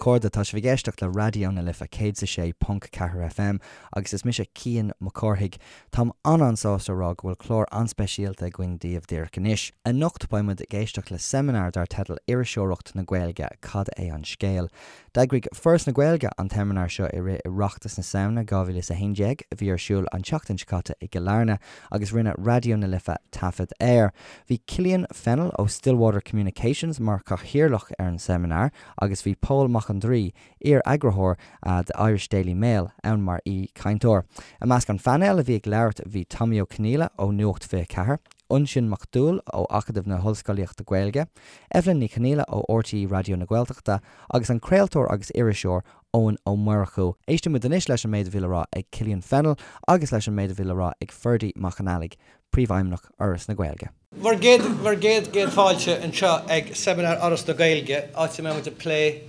chairde, tá sibh ag éisteacht le Raidió na Life 106.4 FM agus is mise Cian Mac Cárthaigh. Táim an-an-sásta a rá go bhfuil clár an-speisialta againn daoibh díreach anois. Anocht beidh muid ag éisteacht le seimineár dar teideal Iriseoireacht na Gaeilge, Cad é an Scéal? D'eagraigh Foras na Gaeilge an tseimineár seo i rith Oireachtas na Samhna 2011, a bhí ar siúl an tseachtain seo caite i gCill Airne, agus rinne Raidió na Life taifead air. Bhí Killian Fennell ó Stillwater Communications mar chathaoirleach ar an seimineár agus bhí Pól Mac an Draoi, iar-eagarthóir The Irish Daily Mail, ann mar aoi-chainteoir. I measc an phainéil a bhí ag labhairt bhí Tommy Ó Conghaile ó Nuacht 24, Uinsionn Mac Dúill ó Acadamh na hOllscolaíochta Gaeilge, Evelyn Ní Chonghaile ó RTÉ Raidió na Gaeltachta agus an craoltóir agus iriseoir Eoin Ó Murchú. Éistfidh muid anois leis an méid a bhí le rá ag Killian Fennell agus leis an méid a bhí le rá ag Ferdie Mac an Fhailigh, Príomhfheidhmeannach Fhoras na Gaeilge. Bhur gcéad, bhur gcéad, gcéad fáilte anseo ag Seimineár Fhoras na Gaeilge, áit a mbeidh muid ag plé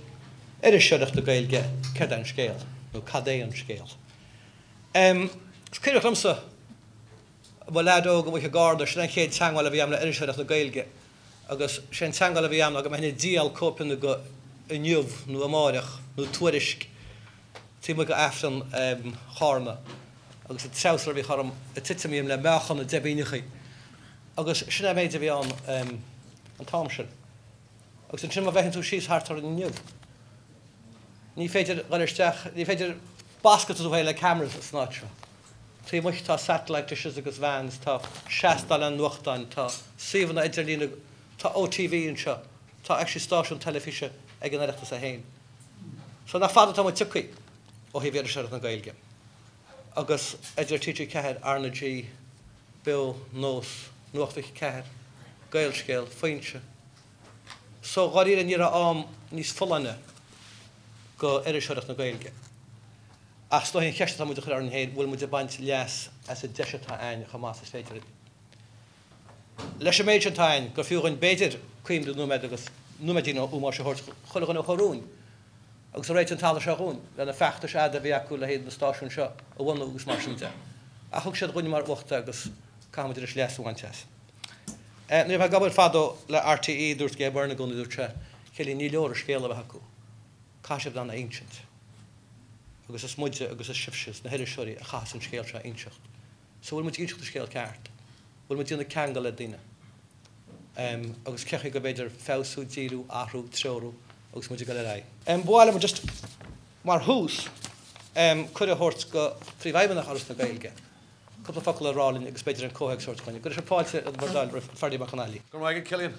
iriseoireacht na Gaeilge, céard é an scéal? Nó cad é an scéal? Is cuimhneach liomsa, mo leaid óg amuigh i gCarna, sin an chéad teangmháil a bhí agam le iriseoireacht na Gaeilge agus sé an teangmháil a bhí agam ná go mbeinn ag díol cóipeanna de Inniu nó Amáireach nó Tuairisc taobh amuigh de Aifreann Charna agus an treabhsar a bhíodh orm ag titim dhíom le meáchan na deibíneachaí agus sin é an méid a bhí ann an t-am sin. Agus ansin má bhfeiceann tú síos thart orainn inniu, ní féidir dhul isteach, ní féidir bascadh tú féin le cameras san áit seo. Taobh amuigh tá satellite dishes agus vans, tá seastáin nuachtáin, tá suíomhanna idirlíne, tá OTV anseo, tá actually stáisiún teilifíse ag an Oireachtas é féin. So nach fada atá muid tioctha ó thaobh iriseoireacht na Gaeilge. Agus idir TG4, RnaG, Beo, Nós, Nuacht 24, Gaelscéal, Foinse. So dháiríre ní raibh am níos folláine go iriseoireacht na Gaeilge. Ach is dóigh an cheist atá muid a chur orainn féin, bhfuil muid ag baint leas as an deis atá a'ainn chomh maith is is féidir linn? Leis an méid sin atá a'ainn, gur fiú dhuinn b'fhéidir cuimhne nóiméad agus nóiméidín ómóis a thabhairt chuile dhuine a chuir fúinn agus a réitigh an talamh seo dhúinn, le na feachtais fhada a bhí acu le haghaidh na stáisiúin seo a bhunú agus mar sin de. Ach thug siad dhúinn mar uacht é agus caithfidh muid anois leas a bhaint as. Nuair a bhí mé ag obair fadó le RTÉ, dúirt Gay Byrne i gcónaí, dúirt sé, Cillian, ní leor an scéal a bheith acu, caithfidh sibh in ann é a insint. Agus is muide agus is sibhse, is na hiriseoirí, a chaithfeas an scéal seo a inseacht. So bhfuil muid ag inseacht an scéal ceart? Bhfuil muid ag déanamh ceangal le daoine? Agus cén chaoi go mb'fhéidir feabhsú, díriú, athrú, treorú agus muid ag dul ar aghaidh? Ba mhaith liom just mar thús cuireadh a thabhairt go Phríomhfheidhmeannach Fhoras na Gaeilge cúpla focal a rá linn agus b'fhéidir an comhthéacs a thabhairt dhúinn. Go raibh fáilte bhur dtoil roimh Ferdie Mac an Fhailigh. Go raibh maith agat Cillian.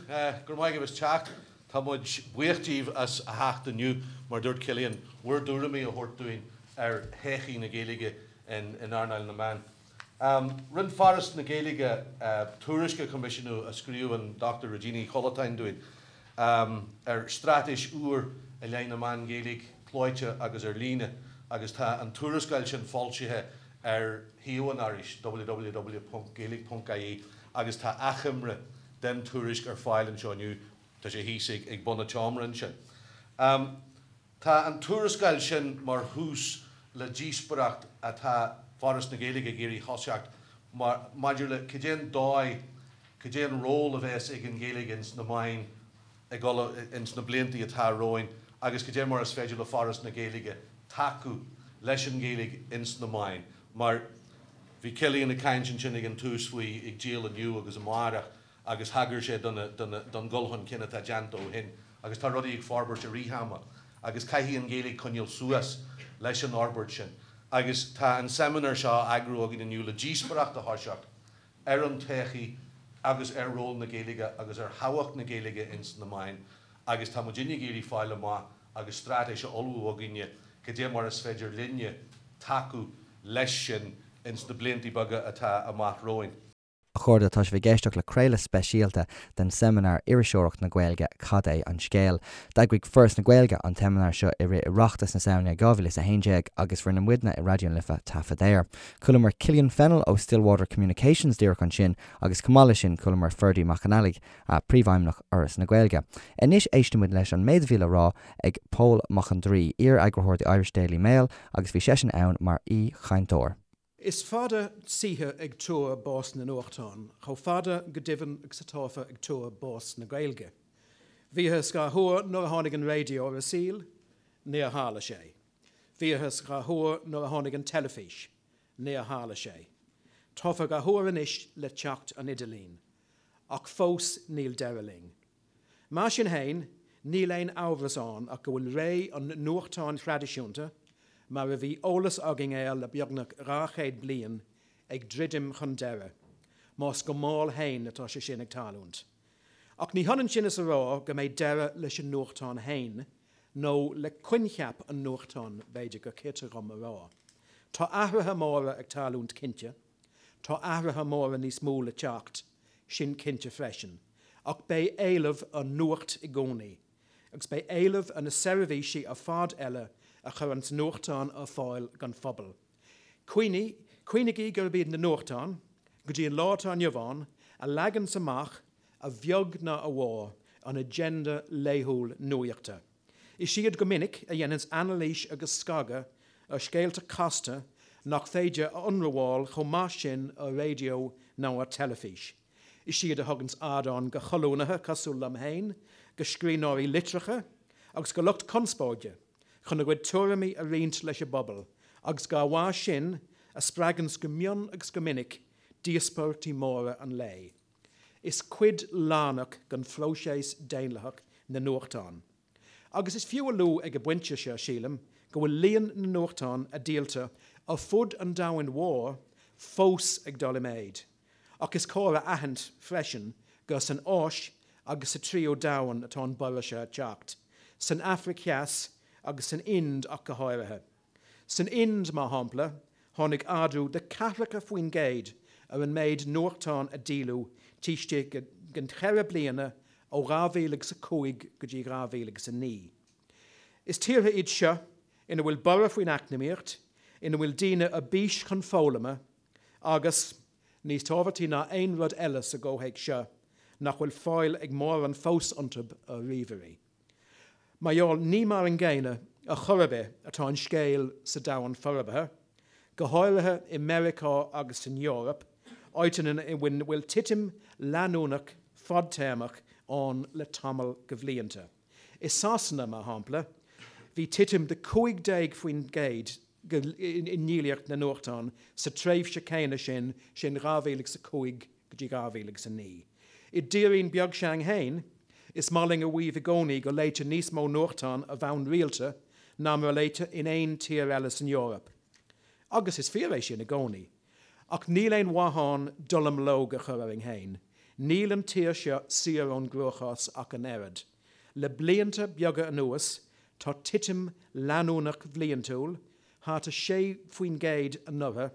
Go raibh maith agaibh as teacht. Tá muid buíoch díbh as a theacht inniu, mar dúirt Cillian, bhur dtuairimí a thabhairt dúinn ar thodhchaí na Gaeilge in earnáil na meán. Rinne Foras na Gaeilge tuairisc a choimisiúnú a scríobh an Dr Regina Uí Chollatáin dúinn ar straitéis úr i leith na meán Gaeilge, clóite agus ar líne, agus tá an tuarascáil sin foilsithe ar shuíomh an Fhorais, www.gaeilge.ie, agus tá achoimre den tuairisc ar fáil anseo inniu, tá sé thíos ag bun an tseomra ansin. Tá an tuarascáil sin mar thús le díospóireacht atá Foras na Gaeilge ag iarraidh thoiseacht maidir le cad é an dóigh, cad é an ról a bheas ag an Ghaeilge ins na meáin ag dul ins na blianta atá romhainn agus cad é mar is féidir le Foras na Gaeilge tacú leis an Ghaeilge ins na meáin mar bhí Cillian ag caint ansin ag an tús faoi ag díol Inniu agus Amárach agus thagair sé don dhul chun cinn atá déanta ó shin agus tá rudaí ag forbairt i rith ama agus caithfidh an Ghaeilge coinneáil suas leis an fhorbairt sin agus tá an seimineár seo á eagrú againn inniu le díospóireacht a thoiseacht ar an todhchaí agus ar ról na Gaeilge agus ar thábhacht na Gaeilge ins na meáin agus tá muidinne ag iarraidh fáil amach agus straitéis a ullmhú againne cad é mar is féidir linne tacú leis sin ins na blianta beaga atá amach romhainn. A chairde, tá sibh ag éisteacht le craoladh speisialta den seimineár Iriseoireacht na Gaeilge, Cad é an Scéal? D'eagraigh Foras na Gaeilge an tseimineár seo i rith Oireachtas na Samhna 2011 agus rinne muidne i Raidió na Life taifead air. Chualamar Killian Fennell ó Stillwater Communications díreach ansin agus chomh maith leis sin chualamar Ferdie Mac an Fhailigh, Príomhfheidhmeannach Fhoras na Gaeilge. Anois éistfidh muid leis an méid a bhí le rá ag Pól Mac an Draoi, iar-eagarthóir The Irish Daily Mail agus bhí seisean ann mar aoi-chainteoir. Is fada saoithe ag tuar bás na nuachtán, chomh fada, go deimhin, agus atáthar ag tuar bás na Gaeilge. Bhíothas dhá thuar nuair a tháinig an raidió ar an saol. Níor tharla sé. Bhíothas dhá thuar nuair a tháinig an teilifís. Níor tharla sé. Táthar dhá thuar anois le teacht an idirlín. Ach fós níl deireadh linn. Mar sin fhéin, níl aon amhras ann ach go bhfuil ré an nuachtáin thraidisiúnta, mar a bhí eolas againn air le beagnach 200 bliain, ag druidim chun deiridh, más go mall fhéin atá sé sin ag tarlúint. Ach ní hionann sin is a rá go mbeidh deireadh leis an nuachtán fhéin, nó le coincheap an nuachtáin, b'fhéidir gur cirte dhom a rá. Tá athruithe móra ag tarlúint cinnte. Tá athruithe móra níos mó le teacht, sin cinnte freisin, ach beidh éileamh ar nuacht i gcónaí, agus beidh éileamh ar na seirbhísí ar fad eile a chuireanns nuachtán ar fáil don phobal. Cuimhnigh, cuimhnigí gurb iad na nuachtáin, go dtí an lá atá inniu ann, a leaganns amach, a bheag ná a mhór, an agenda laethúil nuachta. Is iad go minic a dhéananns anailís agus scagadh ar scéalta casta nach féidir a ionramháil chomh maith sin ar raidió nó ar teilifís. Is iad a thuganns ardán go cholúnaithe cosúil liom féin, go scríbhneoirí litreacha agus go lucht conspóide chun a gcuid tuairimí a roinnt leis an bpobal agus dá bharr sin a spreaganns go mion agus go minic díospóireachtaí móra an lae. Is cuid lárnach den phróiseas daonlathach na nuachtáin. Agus is fiú a lua ag an bpointe seo, sílim, go bhfuil líon na nuachtán a díoltar ar fud an domhain mhóir fós ag dul i méid. Ach is cóir a aithint freisin gur san Áis agus sa Tríú Domhan atá an borradh seo ag teacht, san Afraic Theas agus san Ind ach go háirithe. San Ind, mar shampla, tháinig ardú de 40% ar an méid nuachtán a díoladh taobh istigh den cheithre bliana ó 2005 go dtí 2009. Is tíortha iad seo ina bhfuil borradh faoin eacnamaíocht, ina bhfuil daoine ar bís chun foghlama agus, níos tábhachtaí ná aon rud eile sa gcomhthéacs seo, nach bhfuil fáil ag mórán fós iontu ar ríomhairí. Mar gheall, ní mar an gcéanna ar chor ar bith atá an scéal sa domhan forbartha, go háirithe i Meiriceá agus san Eoraip, áiteanna ina bhfuil titim leanúnach fadtéarmach ann le tamall de bhlianta. I Sasana, mar shampla, bhí titim de 15% i ndíolaíocht na nuachtán sa tréimhse chéanna sin, sin 2005 go dtí 2009. I dtírín beag s'againn féin, is maith linn a mhaíomh i gcónaí go léitear níos mó nuachtán ar bhonn rialta ná mar a léitear in aon tír eile san Eoraip. Agus is fíor é sin i gcónaí. Ach níl aon mhaith ann dallamullóg a chur orainn féin. Níl an tír seo saor ón gcruachás ach an oiread. Le blianta beaga anuas, tá titim leanúnach bhliantúil, thart ar 6% anuraidh,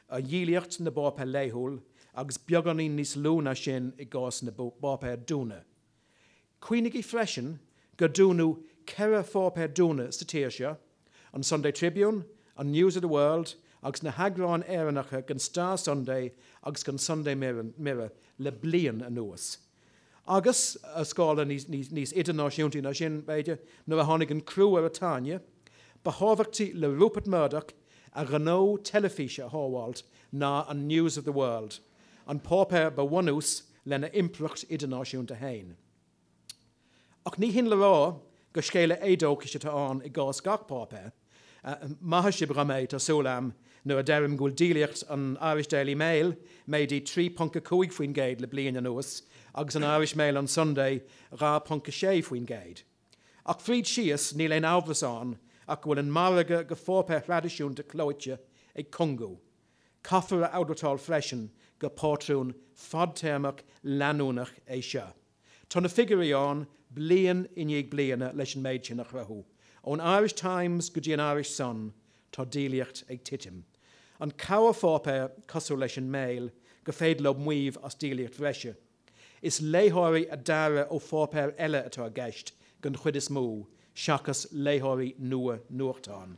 ar dhíolaíocht na bpáipéar laethúil agus beagáinín níos lú ná sin i gcás na bpáipéar dúnadh. Cuimhnigí freisin gur dúnadh 4 pháipéar dúnadh sa tír seo, an Sunday Tribune, an News of the World agus na heagráin Éireannacha den Star Sunday agus den Sunday Mirror le bliain anuas. Agus, ar scála níos idirnáisiúntaí ná sin, b'fhéidir, nuair a tháinig an crú ar an tairne, ba thábhachtaí le Rupert Murdoch a ghnó teilifíse a shábháilt ná an News of the World, an páipéar ba bhunús lena impireacht idirnáisiúnta féin. Ach ní hin le rá gur scéala éadóchais atá ann i gcás gach páipéir. Maithfidh sibh dhom é, tá súil a'm, nuair a deirim go bhfuil díolaíocht an Irish Daily Mail méadaithe 3.5% le bliain anuas agus an Irish Mail on Sunday 2.6%. Ach fríd síos, níl aon amhras ann ach go bhfuil an margadh go pháipéir thraidisiúnta clóite ag cungú. Caithfear a admháil freisin gur pátrún fadtéarmach leanúnach é seo. Tá na figiúirí ann bliain i ndiaidh bliana leis an méid sin a chruthú. Ón Irish Times go dtí an Irish Sun, tá díolaíocht ag titim. An corrpháipéar, cosúil leis an Mail, gur féidir leo maíomh as díolaíocht bhreise. Is léitheoirí a daoradh ó pháipéir eile atá i gceist den chuid is mó, seachas léitheoirí nua nuachtán.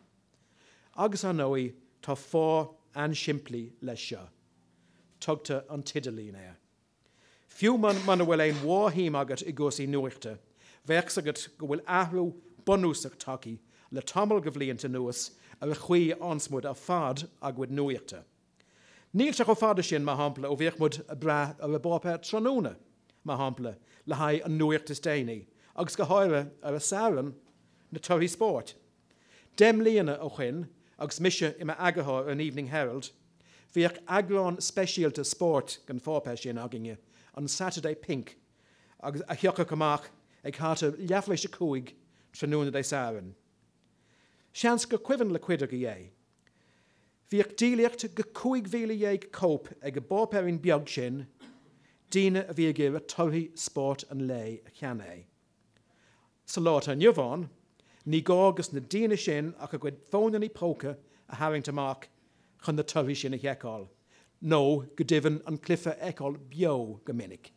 Agus, ar ndóigh, tá fáth an-simplí leis seo. Tugtar an t-idirlíon air. Fiú muna bhfuil aon mhórshuim agat i gcúrsaí nuachta, bheadh 's agat go bhfuil athrú bunúsach tagtha le tamall de bhlianta anuas ar an chaoi a fhaigheanns muid ar fad ár gcuid nuachta. Níl sé chomh fada sin, mar shampla, ó bhíodh muid ag brath ar an bpáipéar tráthnóna, mar shampla, le haghaidh an nuacht is déanaí, agus go háirithe ar an Satharn, na torthaí spóirt. Deich mbliana ó shoin, agus mise i m'eagarthóir ar an Evening Herald, bhíodh eagrán speisialta spóirt den pháipéar sin againne, an Saturday Pink, agus a thiocfadh amach ag thart ar leathuair tar éis a 5 tráthnóna Dé Sathairn. Seans gur cuimhin le cuid agaibh é. Bhíodh díolaíocht go 15,000 cóip ag an bpáipéirín beag sin, daoine a bhí ag iarraidh torthaí spóirt an lae a cheannach. Sa lá atá inniu ann, ní gá dos na daoine sin ach a gcuid fónannaí póca a tharraingt amach chun na torthaí sin a sheiceáil, nó go deimhin an cluiche a fheiceáil beo go minic.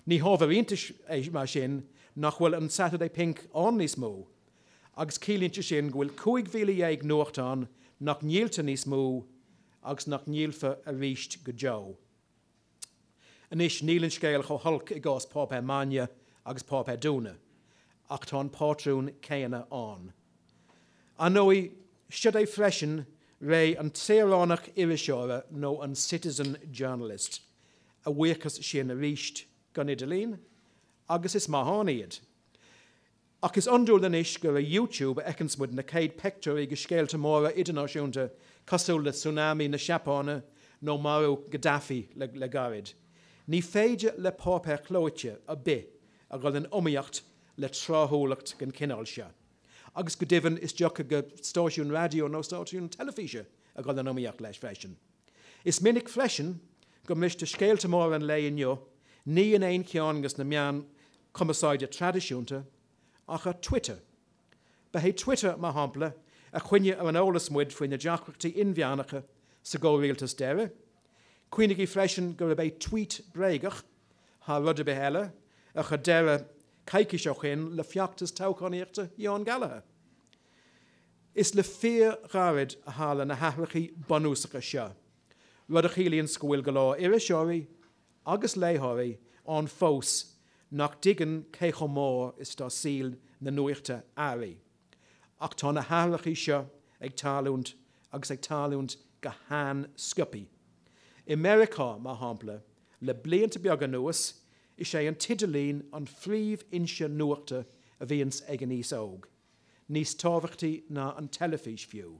Ní hábhar iontais é mar sin nach bhfuil an Saturday Pink ann níos mó, agus ciallaíonn sé sin go bhfuil 15,000 nuachtán nach ndíoltar níos mó agus nach ndíolfar arís go deo. Anois, níl an scéal chomh holc i gcás páipéar maidne agus páipéar dúnadh, ach tá an pátrún céanna ann. Ar ndóigh, siod é freisin ré an tsaoránach iriseora nó an citizen journalist. A bhuíochas sin arís don idirlíon, agus is maith ann iad. Ach is iondúil anois gur ar YouTube a fheiceanns muid na céad peictiúirí de scéalta móra idirnáisiúnta cosúil le tsunami na Seapáine nó marú Gaddafi le gairid. Ní féidir le páipéar clóite ar bith a dhul in iomaíocht le tráthúlacht den chineál seo. Agus go deimhin is deacair do stáisiún raidió nó stáisiún teilifíse a dhul in iomaíocht leis freisin. Is minic freisin go mbristear scéalta móra an lae inniu ní in aon cheann de na meáin chumarsáide traidisiúnta ach ar Twitter. Ba é Twitter, mar shampla, a choinnigh ar an eolas muid faoi na deacrachtaí inmheánacha sa gcomhrialtas deiridh. Cuimhnigí freisin gurb é tweet bréagach, thar rud ar bith eile, a chuir deireadh coicís ó shin le feachtas toghchánaíochta Sheáin Gallagher. Is le fíorghairid a tharla na hathrachaí bunúsacha seo, rud a chiallaíonns go bhfuil go leor iriseoirí agus léitheoirí ann fós nach dtuigeann cé chomh mór is atá saol na nuachta athraithe. Ach tá na hathrachaí seo ag tarlúint agus ag tarlúint go han-sciobthaí. I Meiriceá, mar shampla, le blianta beaga anuas, is é an t-idirlíon an phríomhfhoinse nuachta a bhíonns ag an aos óg. níos tábhachtaí ná an teilifís fiú.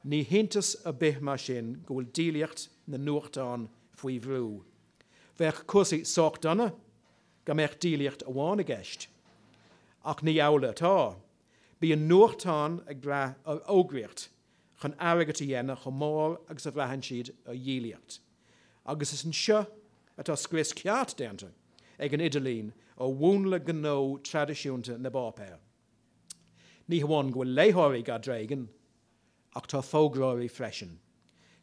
Ní hiontas ar bith mar sin go bhfuil díolaíocht na nuachtán faoi bhrú. Bheadh cúrsaí sách dona dá mbeadh díolaíocht amháin i gceist. Ach ní amhlaidh atá. Bíonn nuachtáin ag brath ar fhógraíocht chun airgead a dhéanamh chomh mór agus a bhraitheann siad ar dhíolaíocht. Agus is anseo atá scrios ceart déanta ag an idirlíon ar mhúnla gnó traidisiúnta na bpáipéar. Ní hamháin go bhfuil léitheoirí dhá dtréigean, ach tá fógróirí freisin.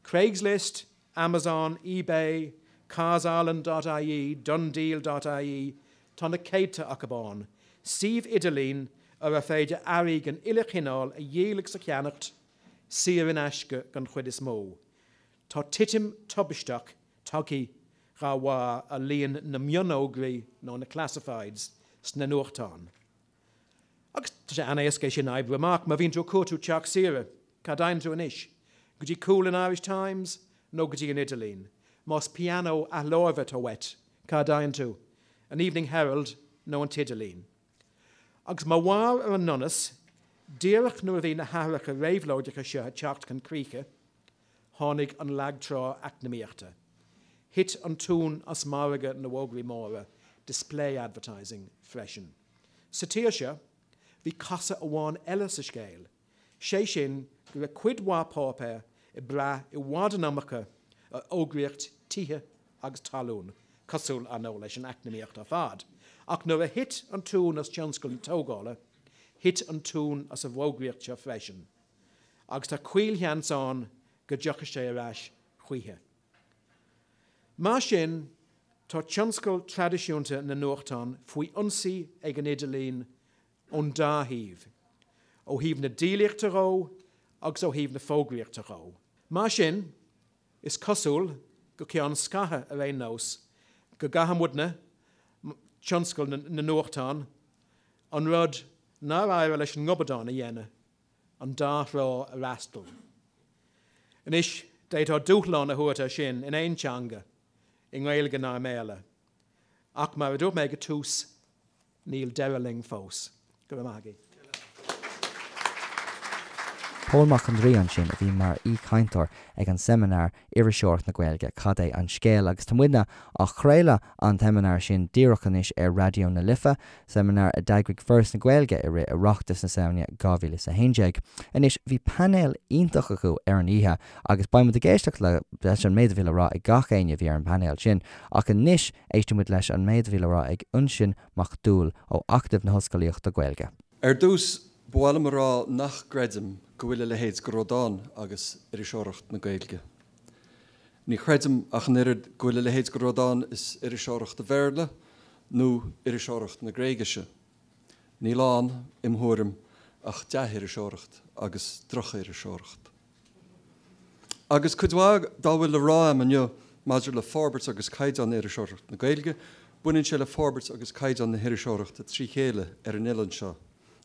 Craigslist, Amazon, eBay, CarsIreland dot ie, DoneDeal dot ie, tá na céadta acu ann, suímh idirlín ar ar féidir earraí den uile chineál a dhíol agus a cheannacht, saor in aisce den chuid is mó. Tá titim tubaisteach tagtha dhá bharr ar líon na mionfhógraí nó na classifieds sna nuachtáin. Agus tá sé an-éasca é sin a oibriú amach, má bhíonn tú ag cuartú teach saoire, cá dtéann tú anois? Go dtí cúl an Irish Times nó go dtí an idirlíon? Más pianó athláimhe atá uait, cá dtéann tú? An Evening Herald nó an t-idirlíon? Agus mar bharr ar an ndonas, díreach nuair a bhí na hathruithe réabhlóideacha seo ag teacht chun críche, Tháinig an lagtrá eacnamaíochta. Thit an tóin as margadh na bhfógraí móra, display advertising, freisin. Sa tír seo, bhí casadh amháin eile sa scéal, sé sin go raibh cuid mhaith páipéar ag brath i bhfad an iomarca ar fhógraíocht tithe agus talún, cosúil, ar ndóigh, leis an eacnamaíocht ar fad. Ach nuair a thit an tóin as tionscal na tógála, thit an tóin as an bhfógraíocht seo freisin. agus tá caolsheans ann go dtiocfaidh sé ar ais choíche. Mar sin, tá tionscal traidisiúnta na nuachtán faoi ionsaí ag an idirlíon ón dá thaobh, ó thaobh na díolaíochta dhó agus ó thaobh na fógraíochta dhó. Mar sin, is cosúil, go ceann scaithimh ar aon nós, go gcaithfidh muidne, tionscal na nuachtán, an rud nár éirigh leis an ngobadán a dhéanamh, an dá thrá a fhreastal. Anois, d'fhéadfá dúshlán a thabhairt air sin in aon teanga, i nGaeilge ná i mBéarla. Ach mar a dúirt mé ag an tús, níl deireadh linn fós. Go raibh maith agaibh. Pól Mac an Draoi ansin a bhí mar aoichainteoir ag an seimineár Iriseoireacht na Gaeilge, Cad é an Scéal? Agus tá muidne á chraoladh an tseimineár sin díreach anois ar Raidió na Life, seimineár a d'eagraigh Foras na Gaeilge i rith Oireachtas na Samhna 2011. Anois, bhí painéal iontach acu ar an oíche agus beidh muid ag éisteacht leis an méid a bhí le rá ag gach éinne a bhí ar an bpainéal sin. Ach anois, éistfidh muid leis an méid a bhí le rá ag Uinsionn Mac Dúill ó Acadamh na hOllscolaíochta Gaeilge. Ar dtús, ba mhaith liom a rá nach gcreidim go bhfuil a leithéid de rud ann agus iriseoireacht na Gaeilge. Ní chreidim ach an oiread go bhfuil a leithéid de rud ann is iriseoireacht an Bhéarla nó iriseoireacht na Gréigise. Níl ann, im thuairim, ach dea-iriseoireacht agus droch-iriseoireacht. Agus cuid mhaith dá bhfuil le rá a'm inniu maidir le forbairt agus caighdeán iriseoireacht na Gaeilge, baineann sé le forbairt agus caighdeán na hiriseoireachta trí chéile ar an oileán seo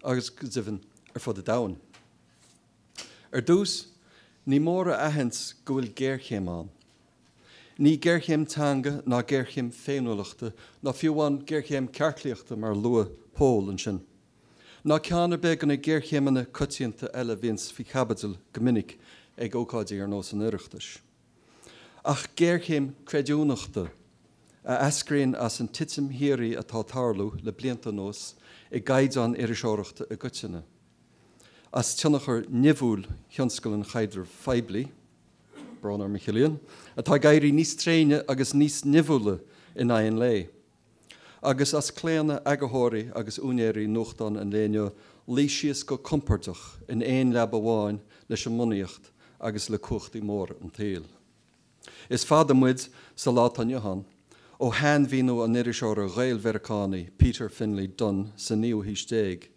agus, go deimhin, ar fud an domhain. Ar dtús, ní mór a aithint go bhfuil géarchéim ann. Ní géarchéim teanga ná géarchéim féiniúlachta ná fiú amháin géarchéim cearclaíochta mar a luaigh Pól ansin. Ná ceann ar bith de na géarchéimeanna coitianta eile a bhíonns faoi chaibidil go minic ag ócáidí ar nós an Oireachtais. Ach géarchéim creidiúnachta, a eascraíonn as an titim shíoraí atá ag tarlú le blianta anuas i gcaighdeán iriseoireachta i gcoitinne, as tionchar nimhiúil thionscal an chaidrimh phoiblí, brón orm a Chillian, atá ag éirí níos tréine agus níos nimhiúla in aghaidh an lae. agus as claonadh eagarthóirí agus úinéirí nuachtán an lae inniu luí síos go compordach in aon leaba amháin leis an mbunaíocht agus le cumhachtaí móra an tsaoil. Is fada muid, sa lá atá inniu ann, ó shainmhíniú an iriseora Ghael-Mheiriceánaigh Peter Finley Dunne sa naoú haois déag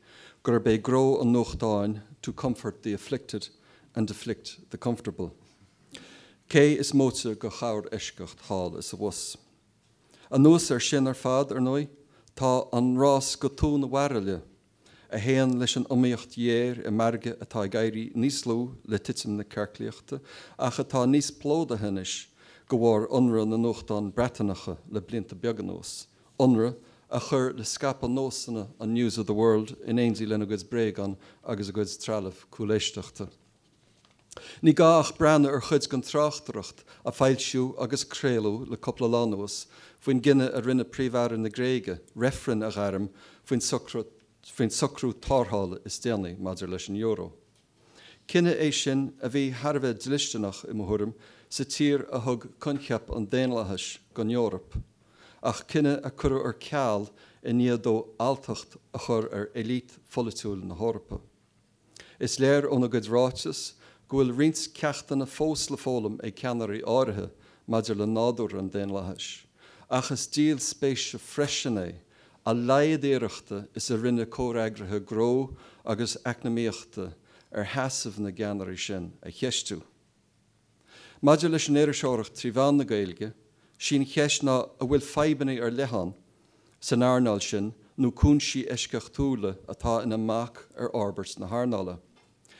gurb é gnó an nuachtáin to comfort the afflicted and afflict the comfortable. Cé is móite de chorr-eisceacht thall is abhus. Anuas air sin ar fad, ar ndóigh, tá an rás go tóin an bhairille, a théann leis an iomaíocht ghéar i margadh atá ag éirí níos lú le titim na cearclaíochta ach atá níos plódaithe anois de bharr ionradh na nuachtán Breatanacha le blianta beaga anuas, ionradh a chuir le scaipeadh nósanna an News of the World in éindí lena gcuid bréagán agus a gcuid trealamh cúléisteachta. Ní gá ach breathnú ar chuid den tráchtaireacht a foilsíodh agus craoladh le cúpla lá anuas faoin gcinneadh a rinne Príomh-Aire na Gréige reifreann a ghairm faoin faoin socrú tarrthála is déanaí maidir leis an euro. Cinneadh é sin a bhí thar a bheith dlisteanach, i mo thuairim, sa tír a thug coincheap an daonlathais don Eoraip, ach cinneadh a cuireadh ar ceal i ndiaidh dó alltacht a chur ar élite pholaitiúil na hEorpa. Is léir óna gcuid ráiteas go bhfuil roinnt ceachtanna fós le foghlaim ag ceannairí áirithe maidir le nádúr an daonlathais, ach is díol spéise freisin é a laghad iarrachta is a rinne comhfhreagraithe gnó agus eacnamaíochta ar sheasamh na gceannairí sin a cheistiú. Maidir leis an iriseoireacht trí mheán na Gaeilge, sí an cheist ná an bhfuil fadhbanna ar leith ann san earnáil sin nó cúinsí eisceachtúla atá ina mbac ar fhorbairt na hearnála.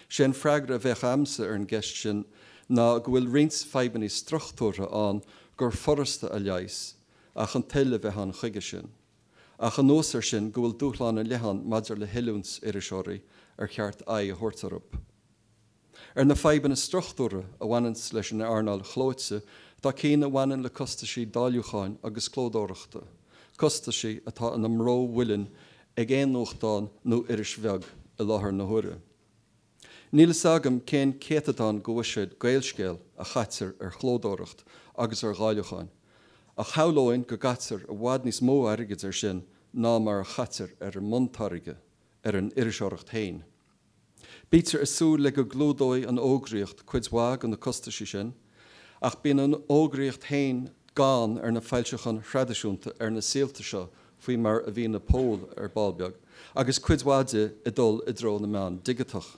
Sé an freagra a bheadh a'msa ar an gceist sin ná go bhfuil roinnt fadhbanna struchtúrtha ann gur furasta a leigheas ach an toil a bheith ann chuige sin. Ach anuas air sin go bhfuil dúshláin ar leith ann maidir le hoiliúint iriseoirí ar cheart aghaidh a thabhairt orthu. Ar na fadhbanna struchtúrtha a bhaineanns leis an earnáil chlóite tá cinn a bhaineann le costaisí dáiliúcháin agus clódóireachta, costaisí atá ina mbró mhuilinn ag aon nuachtán nó iris bheag i láthair na huaire. Níl fhios agam cén céatadán de bhuiséad Gaelscéal a chaitear ar chlódóireacht agus ar dháiliúcháin, ach shamhlóinn go gcaitear i bhfad níos mó airgid air sin ná mar a chaitear ar an mbuntáirge, ar an iriseoireacht féin. Bítear ag súil le go gclúdóidh an fhógraíocht cuid mhaith de na costaisí sin, ach bíonn an fhógraíocht féin gann ar na foilseacháin thraidisiúnta ar na saolta seo faoi mar a mhínigh Pól ar ball beag, agus cuid mhaith di ag dul i dtreo na meán digiteach.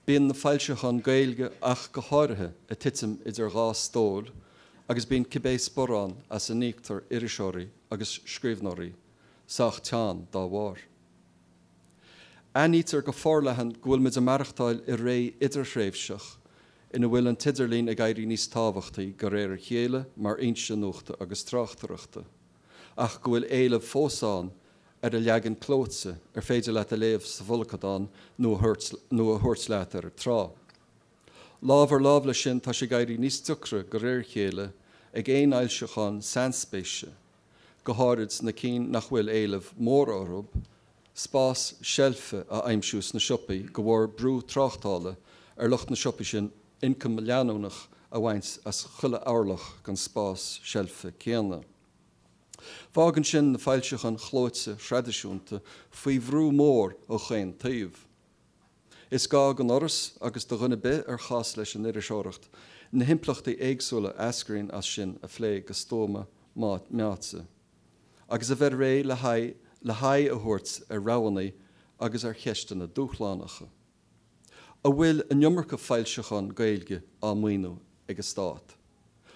Bíonn na foilseacháin Gaeilge ach go háirithe ag titim idir dhá stól agus bíonn cibé sparán as a n-íoctar iriseoirí agus scríbhneoirí sách teann dá bharr. Aithnítear go forleathan go bhfuil muid ag maireachtáil i ré idirthréimhseach ina bhfuil an t-idirlíon ag éirí níos tábhachtaí de réir a chéile mar fhoinse nuachta agus tráchtaireachta, ach go bhfuil éileamh fós ann ar a leagan clóite ar féidir leat a léamh sa bhfolcadán nó a thabhairt leat ar an trá. Lámh ar lámh leis sin tá sé ag éirí níos deacra de réir a chéile ag aon fhoilseachán sainspéise, go háirid na cinn nach bhfuil éileamh mór orthu, spás seilfe a aimsiú sna siopaí de bharr brú tráchtála ar lucht na siopaí sin ioncam leanúnach a bhaint as chuile orlach den spás seilfe céanna. Fágann sin na foilseacháin chlóite thraidisiúnta faoi bhrú mór ó chaon taobh. Is gá don Fhoras agus do dhuine ar bith ar chás leis an iriseoireacht na himpleachtaí éagsúla a eascraíonn as sin a phlé go stuama meáite agus a bheith réidh le haghaidh le haghaidh a thabhairt ar roghanna agus ar cheisteanna dúshlánacha. An bhfuil an iomarca foilseachán Gaeilge á maoiniú ag an stát?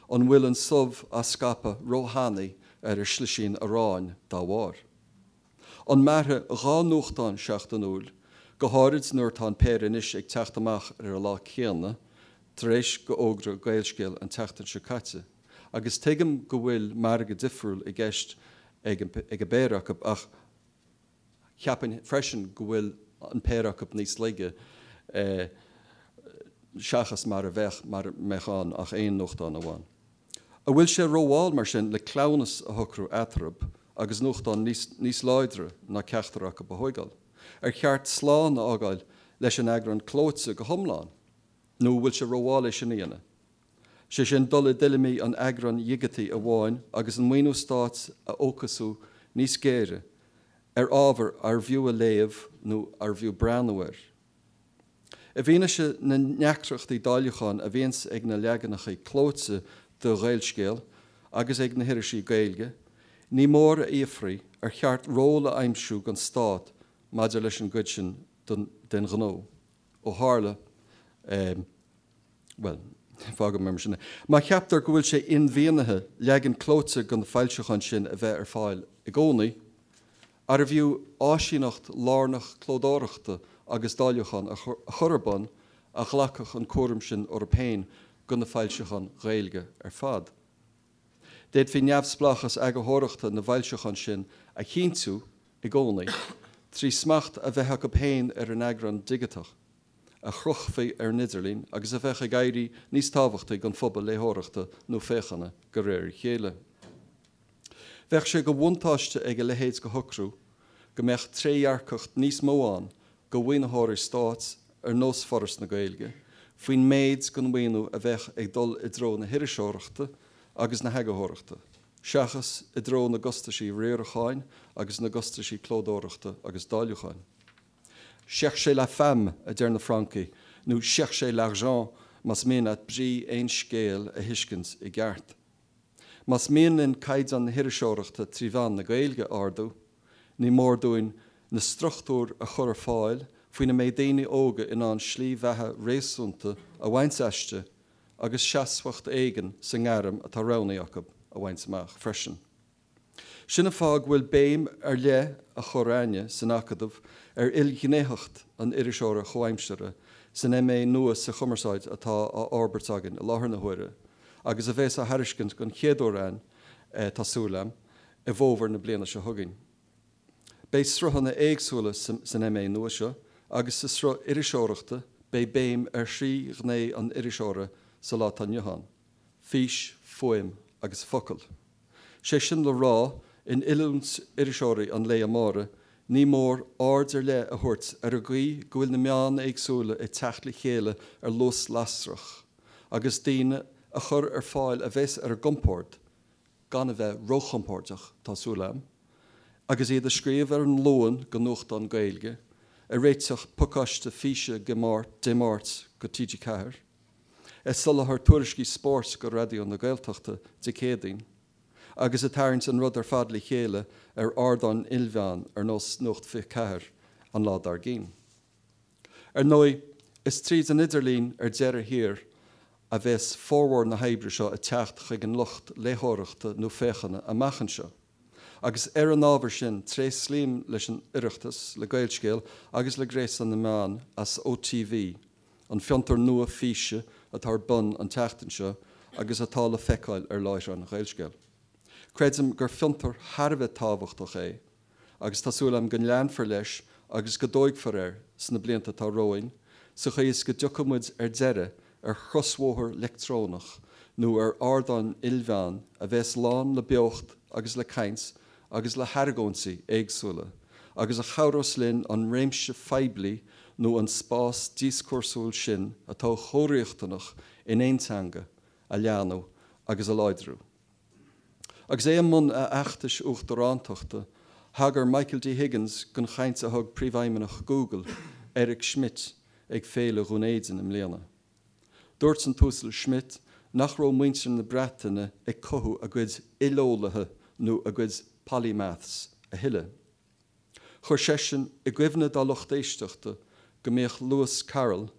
An bhfuil an subh á scaipeadh róthanaí ar an slisín aráin dá bharr? An mairfidh 2 nuachtán seachtainiúil, go háirid nuair atá an péire anois ag teacht amach ar an lá céanna, tar éis go fhógra Gaelscéal an tseachtain seo caite, agus tuigim go bhfuil margadh difriúil i gceist ag an bpéire acu ach, Cheapfainn freisin go bhfuil an péire acu níos laige seachas mar a bheadh mara mbeadh ann ach aon nuachtán amháin. An bhfuil sé rómhall mar sin le cleamhnas a shocrú eatarthu agus nuachtán níos láidre ná ceachtar acu a thóigeáil? Ar cheart slán a fhágáil leis an eagrán clóite go hiomlán nó an bhfuil sé rómhall é sin a dhéanamh? Sé sin dul i dtuilleamaí an eagráin dhigitigh amháin agus an maoiniú stáit a fhócasú níos géire ar ábhar arbh fhiú a léamh nó arbh fhiú breathnú air. I bhfianaise na ndeacrachtaí dáiliúcháin a bhíonns ag na leaganacha clóite de Ghaelscéal agus ag na hirisí Gaeilge, ní mór a fhiafraí ar cheart ról a aimsiú don stát maidir leis an gcuid sin den ghnó. Ó tharla, bhuel, fágfaidh mé mar sin é. Má cheaptar go bhfuil sé inmhianaithe leagan clóite de na foilseacháin sin a bheith ar fáil i gcónaí, arbh fhiú áisíneacht lárnach clódóireachta agus dáiliúcháin a chur ar bun a ghlacfadh an cúram sin orthu féin do na foilseacháin Ghaeilge ar fad? D'fhéadfaí neamhspleáchas eagarthóireachta na bhfoilseachán sin a chinntiú i gcónaí trí smacht a bheith acu féin ar an eagrán digiteach a chrochfaí ar an idirlíon agus a bheadh ag éirí níos tábhachtaí don phobal léitheoireachta nó féachana de réir a chéile. Bheadh sé de bhuntáiste ag a leithéid de shocrú go mbeadh trédhearcacht níos mó ann do mhaoinitheoirí stáit ar nós Foras na Gaeilge faoin méid den mhaoiniú a bheadh ag dul i dtreo na hiriseoireachta agus na heagarthóireachta, seachas i dtreo na gcostaisí riaracháin agus na gcostaisí clódóireachta agus dáiliúcháin. Cherchez la femme, a deir na Francaigh, nó cherchez l'argent más mian leat brí aon scéil a thuiscint i gceart. Más mian linn caighdeán na hiriseoireachta trí mheán na Gaeilge a ardú, ní mór dúinn na struchtúir a chur ar fáil faoina mbeidh daoine óga in ann slí bheatha réasúnta a bhaint aisti agus seasmhacht éigin sa ngairm atá roghnaithe acu a bhaint amach freisin. Sin an fáth go bhfuil béim ar leith á chur a'inne san Acadamh ar ilghnéitheacht an iriseora chomhaimseartha san MA nua sa Chumarsáid atá á fhorbairt againn i láthair na huaire agus a bheas á thairiscint don chéad uair a'inn, tá súil a'm, i bhfómhar na bliana seo chugainn. Beidh sruthanna éagsúla san MA nua seo agus sa sruth iriseoireachta beidh béim ar thrí ghné an iriseora sa lá atá inniu ann, fís, fuaim agus focal. Sé sin le rá, in oiliúint iriseoirí an lae amáirigh, ní mór aird ar leith a thabhairt ar an gcaoi go bhfuil na meáin éagsúla ag teacht le chéile ar luas lasrach, agus daoine a chur ar fáil a bheas ar a gcompord, gan a bheith róchompordach, tá súil a'm, agus iad ag scríobh ar an Luan go nuachtán Gaeilge, ag réiteach pacáiste físe Dé Máirt go TG4. Ag soláthar tuairiscí spóirt go Raidió na Gaeltachta Dé Céadaoin, agus ag tarraingt an rud ar fad le chéile ar ardáin ilmheán ar nós Nuacht 24 an lá dár gcionn. Ar ndóigh, is tríd an idirlíon ar deireadh thiar a bheas formhór na hoibre seo ag teacht chuig an lucht léitheoireachta nó féachana amach anseo. Agus ar an ábhar sin, tréaslaím leis an Oireachtas, le Gaelscéal agus le Gréasán na Meán as OTV, an fiontar nua físe atá ar bun an tseachtain seo agus atá le feiceáil ar láithreán Ghaelscéal. Creidim gur fiontar thar a bheith tábhachtach é. agus tá súil agam go leanfar leis agus go dtóigfear air sna blianta atá romhainn, sa chaoi is go dtiocfaidh muid ar deireadh ar chrosbhóthar leictreonach nó ar ardán ilmheán a bheas lán le beocht agus le caint agus le hargóintí éagsúla agus a chabhrós linn an réimse phoiblí nó an spás díoscúrsúil sin atá chomh riachtanach in aon teanga a leathnú agus a láidriú. Agus é i mbun a fheachtais uachtarántachta, thagair Michael D. Higgins don chaint a thug Príomhfheidhmeannach Google, Eric Schmidt, ag Féile Dhún Éideann i mbliana. Dúirt an tUasal Schmidt nach raibh muintir na Breataine ag cothú a gcuid ileolaithe nó a gcuid polymaths a thuilleadh. Chuir seisean i gcuimhne dá lucht éisteachta go mbíodh Lewis Carroll,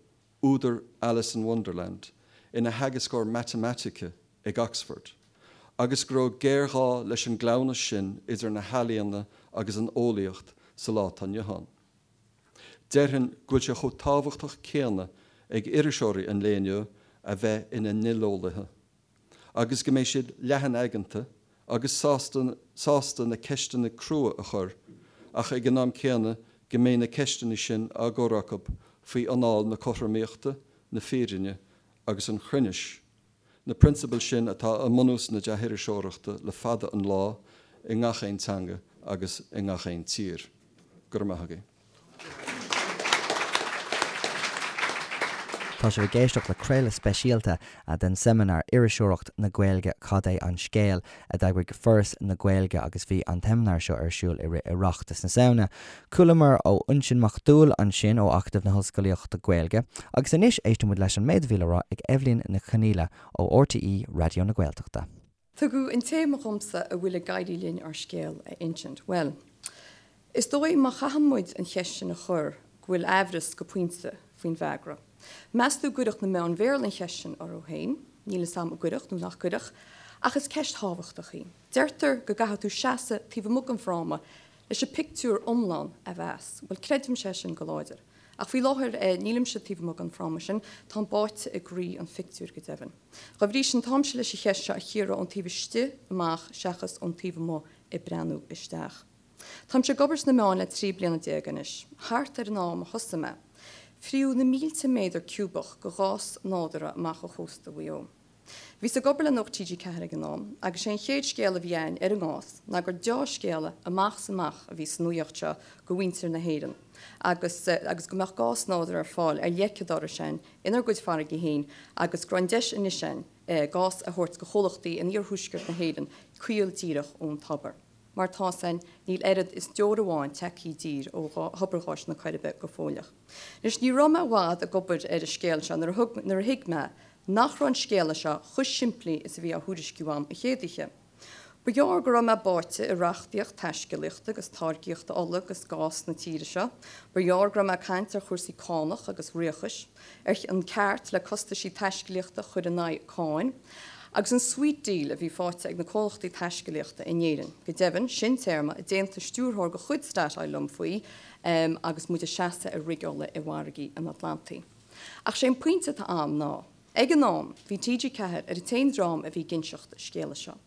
údar Alice in Wonderland, ina theagascóir matamaitice ag Oxford, agus go raibh géarghá leis an gcleamhnas sin idir na healaíona agus an eolaíocht sa lá atá inniu ann. Déarfainn go bhfuil sé chomh tábhachtach céanna ag iriseoirí an lae inniu a bheith ina n-ileolaithe, agus go mbeidh siad leathan-aigeanta agus sásta sásta na ceisteanna crua a chur, ach ag an am céanna go mbeidh na ceisteanna sin á gcur acu faoi anáil na cothromaíochta, na fírinne agus an chruinnis, na prionsabail sin atá i mbunús na dea-iriseoireachta le fada an lá i ngach aon teanga agus i ngach aon tír. Go raibh maith agaibh. Tá sibh ag éisteacht le craoladh speisialta den seimineár Iriseoireacht na Gaeilge, Cad é an Scéal? a d'eagraigh Foras na Gaeilge agus bhí an tseimineár seo ar siúl i rith Oireachtas na Samhna. Chualamar ó Uinsionn Mac Dúill ansin ó Acadamh na hOllscolaíochta Gaeilge agus anois éistfidh muid leis an méid a bhí le rá ag Eibhlín Nic Chonaola ó RTÉ Raidió na Gaeltachta. Tugadh an téama dhomsa an bhfuil ag éirí linn ár scéal a insint. Bhuel, is dóigh má chaitheann muid an cheist sin a chur go bhfuil aimhreas go pointe faoin bhfreagra. Meas tú an gcuirfeadh na meáin Bhéarla an cheist sin orthu féin? Níl 'fhios a'm an gcuirfeadh nó nach gcuirfeadh, ach is ceist thábhachtach í. Deirtear go gcaithfidh tú seasamh taobh amuigh den fhráma leis an pictiúr iomlán a mheas. Bhuel, creidimse é sin go láidir. Ach faoi láthair, nílimse taobh amuigh den fhráma sin, táim báite i gcroí an phictiúir, go deimhin. Dá bhrí sin, táimse leis an cheist seo a chíoradh ón taobh istigh amach seachas ón taobh amuigh ag breathnú isteach. Táimse ag obair sna meáin le 13 bliana anois. Thart ar an am a thosaigh mé, fritheadh na mílte méadar ciúbach de ghás nádúrtha amach ó chósta Mhaigh Eo. Bhíos ag obair le Nuacht TG4 ag an am agus sé an chéad scéal a bhí a'ainn ar an ngás ná gur deá-scéala amach is amach a bhí sa nuaíocht seo go mhuintir na hÉireann agus agus go mbeadh gás nádúrtha ar fáil ar leic an dorais a'ainn inár gcuid farraigí féin agus go raibh an deis anois a'ainn gás a thabhairt go chomhlachtaí in iarthuaisceart na hÉireann caol díreach ón tobar. Mar tá's a'ainn, níl oiread is deoir amháin tagtha i dtír ó thobar gháis na Coiribe go fóilleach. Anois, ní raibh mé i bhfad ag obair ar an scéal seo nuair a thug, nuair a thuig mé nach raibh an scéala seo chomh simplí is a bhí á thuairisciú a'm an chéad oíche. Ba ghearr go raibh mé báite i reachtaíocht taiscéalaíochta agus táirgíochta ola agus gás na tíre seo. Ba ghearr go raibh mé ag caint ar chúrsaí cánach agus ríochais. ar an ceart le costaisí taiscéalaíochta a chur in aghaidh cáin, agus an sweet deal a bhí faighte ag na comhlachtaí taiscéalaíochta in Éirinn. Go deimhin, sin téarma a d'aontaigh stiúrthóir de chuid Statoil liom faoi agus muid ag seasamh ar rig ola i bhfarraigí an Atlantaigh. Ach sé an pointe atá a'm ná, ag an am, bhí TG4 ar an t-aon dream a bhí ag inseacht an scéala seo.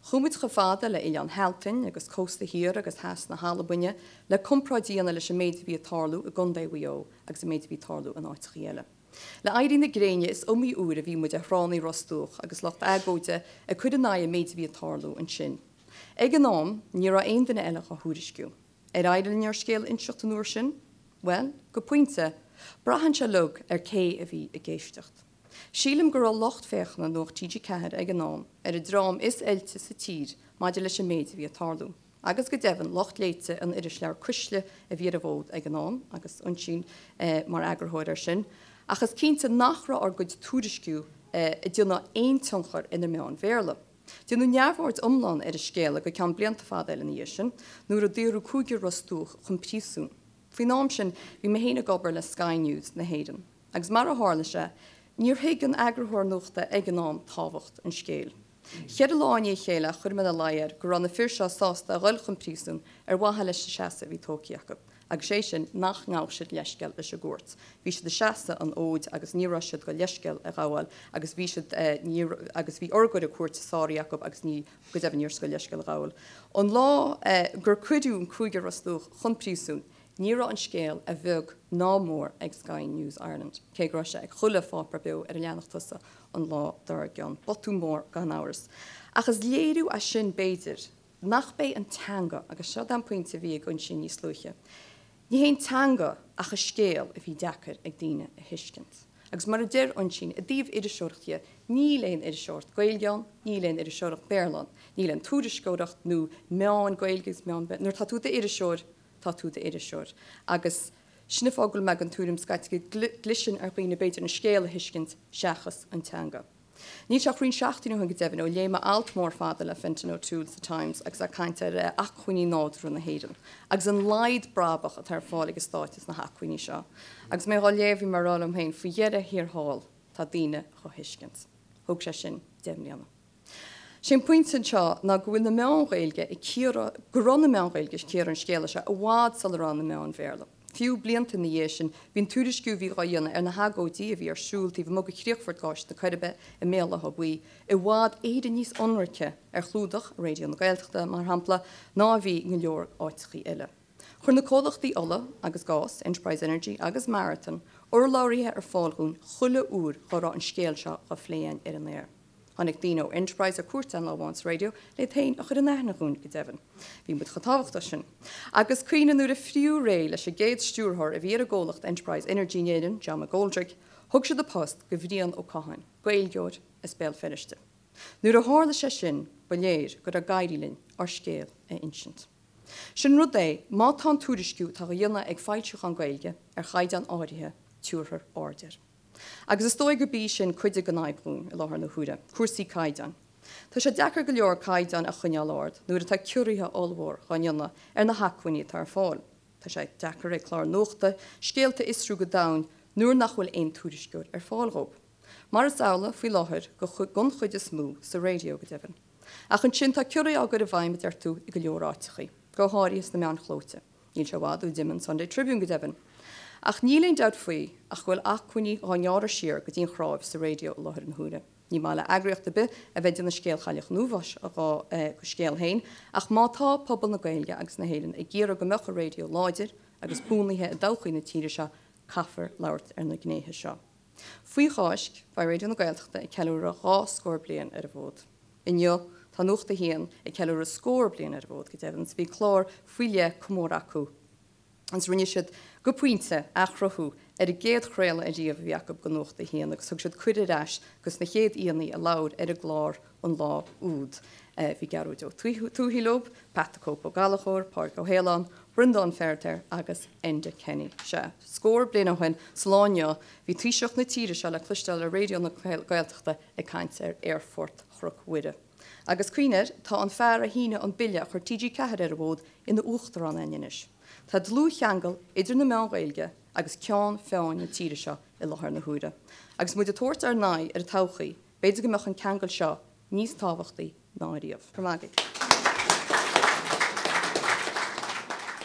Chuaigh muid chomh fada le Oileán Shealtainn agus cósta thiar agus theas na hAlbaine le comparáid a dhéanamh leis an méid a bhí ag tarlú i gContae Mhaigh Eo agus an méid a bhí ag tarlú in áiteachaí eile. Le éirí na gréine is iomaí uair a bhí muid ar thránna Ros Dumhach agus lucht agóide ag cur in aghaidh an méid a bhí ag tarlú ansin. Ag an am, ní raibh aon duine eile dhá thuairisciú. Ar éirigh linn ár scéal a inseacht an uair sin? Bhuel, go pointe, braitheann sé uilig ar cé a bhí ag éisteacht. Sílim go raibh lucht féachana Nuacht TG4 ag an am ar an dream is oilte sa tír maidir leis an méid a bhí ag tarlú, agus go deimhin lucht léite an irisleabhair Cuisle a bhí ar an bhfód ag an am, agus Uinsíonn mar eagarthóir air sin, ach is cinnte nach raibh ár gcuid tuairisciú ag déanamh aon tionchar ar na meáin Bhéarla. Déanadh neamhaird iomlán ar an scéala go ceann blianta fada eile ina dhiaidh sin, nuair a daoradh cúigear Ros Dumhach chun príosúin. Faoin am sin bhí mé féin ag obair le Sky News na hÉireann. Agus mar a tharla sé, níor thuig an eagarthóir nuachta ag an am tábhacht an scéil. Cheithre lá i ndiaidh a chéile chuir mé ina luí air go raibh na fir seo sásta a dhul chun príosúin ar mhaithe leis an seasamh a bhí tógtha acu. Agus sé sin nach ngabhadh siad leithscéal leis an gcúirt. Bhí siad ag seasamh an fhóid agus ní raibh siad go leithscéal a ghabháil agus bhí siad, ní, agus bhí urghaire cúirte sáraithe acu agus ní, go deimhin ní raibh siad go leithscéal a ghabháil. An lá gur cuireadh an cúigear Ros Dumhach chun príosúin, ní raibh an scéal a bheag ná mór ag Sky News Ireland, cé go raibh sé ag chuile pháipéar beo ar a leathanach tosaigh an lá dár gcionn. Botún mór gan amhras. Ach is léiriú é sin, b'fhéidir, nach b'é an teanga, agus seo an pointe a bhí ag Uinsíonn níos luaithe, ní hé an teanga ach an scéal a bhí deacair ag daoine a thuiscint. Agus mar a deir Uinsíonn, i dtaobh iriseoireacht dhe, níl aon iriseoireacht Gaeilge ann, níl aon iriseoireacht Béarla ann, níl aon tuairisceoireacht nó meáin Gaeilge agus meáin Béarla, nuair atá tú i d'iriseoir, tá tú i d'iriseoir. Agus sin an fáth go bhfuil mé den tuairim scaití go gcliseann ar dhaoine b'fhéidir an scéal a thuiscint seachas an teanga. Níl sé ach roinnt seachtainí ó shin go deimhin ó léigh mé alt mór fada le Fintan O'Toole sa Times agus é ag caint ar acmhainní nádúrtha na hÉireann agus an laghad brabach atá ar fáil ag an stát as na hacmhainní seo. Agus mé dhá léamh bhí mé ag rá liom féin, faoi dheireadh thiar thall tá daoine dhá thuiscint. Thóg sé sin 10 mbliana. Sé an pointe anseo ná go bhfuil na meáin Ghaeilge ag cíoradh, go raibh na meáin Ghaeilge ag cíoradh an scéala seo i bhfad sula raibh na meáin Bhéarla. Fiú blianta ina dhiaidh sin, bhí an tuairisciú a bhí dhá dhéanamh ar na hagóidí a bhí ar siúl taobh amuigh de chríochfort gáis na Coiribe i mBéal Átha Buí i bhfad Éireann níos ionraice ar chlúdach Raidió na Gaeltachta, mar shampla, ná a bhí i go leor áiteachaí eile. Chuir na comhlachtaí ola agus gás, Enterprise Energy agus Marathon, urlabhraithe ar fáil dhúinn chuile uair dhá raibh an scéal seo dhá phlé againn ar an aer. Tháinig daoine ó Enterprise ar cuairt againn lá amháin sa raidió le iad féin a chur in aithne dhúinn, go deimhin. Bhí muid chomh tábhachtach sin. Agus cuimhnigh nuair a fritheadh réidh leis an gcéad stiúrthóir a bhí ar an gcomhlacht Enterprise Energy in Éirinn, John McGoldrick, thug siad an post go Bhrian Ó Catháin, Gaeilgeoir as Béal Feirste. Nuair a tharla sé sin ba léir go raibh ag éirí linn ár scéal a insint. Sin rud é, má tá an tuairisciú atá á dhéanamh ag foilseacháin Gaeilge ar chaighdeán áirithe, tabharfar aird air. Agus is dóigh gurb í sin cuid den fhadhb dhúinn i láthair na huaire, cúrsaí caighdeáin. Tá sé deacair go leor caighdeáin a choinneáil ard nuair atá ciorruithe ollmhór dhá ndéanamh ar na hacmhainní atá ar fáil. Tá sé deacair ag cláir nuachta scéalta a fhiosrú go domhain nuair nach bhfuil aon tuairisceoir ar fáil dhóibh. Mar is amhlaidh faoi láthair don chuid is mó, sa raidió go deimhin. Ach ansin tá ciorruithe á gcur i bhfeidhm, a deir tú, i go leor áiteachaí, go háirithe sna meáin chlóite. Níl sé i bhfad ó d'imigh an Sunday Tribune go deimhin. Ach níl aon dabht faoi ach go bhfuil acmhainní dhá ngearradh siar go dtí an chráibh sa raidió i láthair na huaire. Ní maith le eagraíocht ar bith a bheith ag déanamh scéal Chailleach an Uafáis dhá scéal féin ach má tá pobal na Gaeilge agus na hÉireann ag iarraidh go mbeadh an raidió láidir agus buanaithe i dtodhchaí na tíre seo caithfear labhairt ar na gnéithe seo. Faoi Cháisc, beidh Raidió na Gaeltachta ag ceiliúradh 20 scór bliain ar an bhfód. Inniu, tá Nuacht a hAon ag ceiliúradh scór bliain ar an bhfód, go deimhin, 's bhí clár faoi leith comórtha acu agus rinne siad, go pointe, athchruthú ar an gcéad chraoladh ariamh a bhí acu go Nuacht a hAon agus thug siad cuireadh ar ais dos na chéad aíonna a labhair ar an gclár an lá úd. Bhí Gearóid Ó Tuathaigh leo, Pat the Cope Ó Gallchóir, Pádraig Ó hAoláin, Breandán Feiritéar agus Enda Kenny. Sea, scór bliain ó shin, sa lá inniu, bhí Taoiseach na tíre seo le cloisteáil ar Raidió na Gaeltachta ag caint ar Aerfort Chnoc Mhuire. Agus cuimhnigh air, tá an fear a shínigh an bille a chuir TG4 ar an bhfód ina uachtarán againn anois. Tá dlúthcheangal idir na meáin Ghaeilge agus ceann feadhain na tíre seo i láthair na huaire. Agus muid ag tabhairt ár n-aghaidh ar an todhchaí, B'fhéidir go mbeadh an ceangal seo níos tábhachtaí ná ariamh. Go raibh maith agaibh.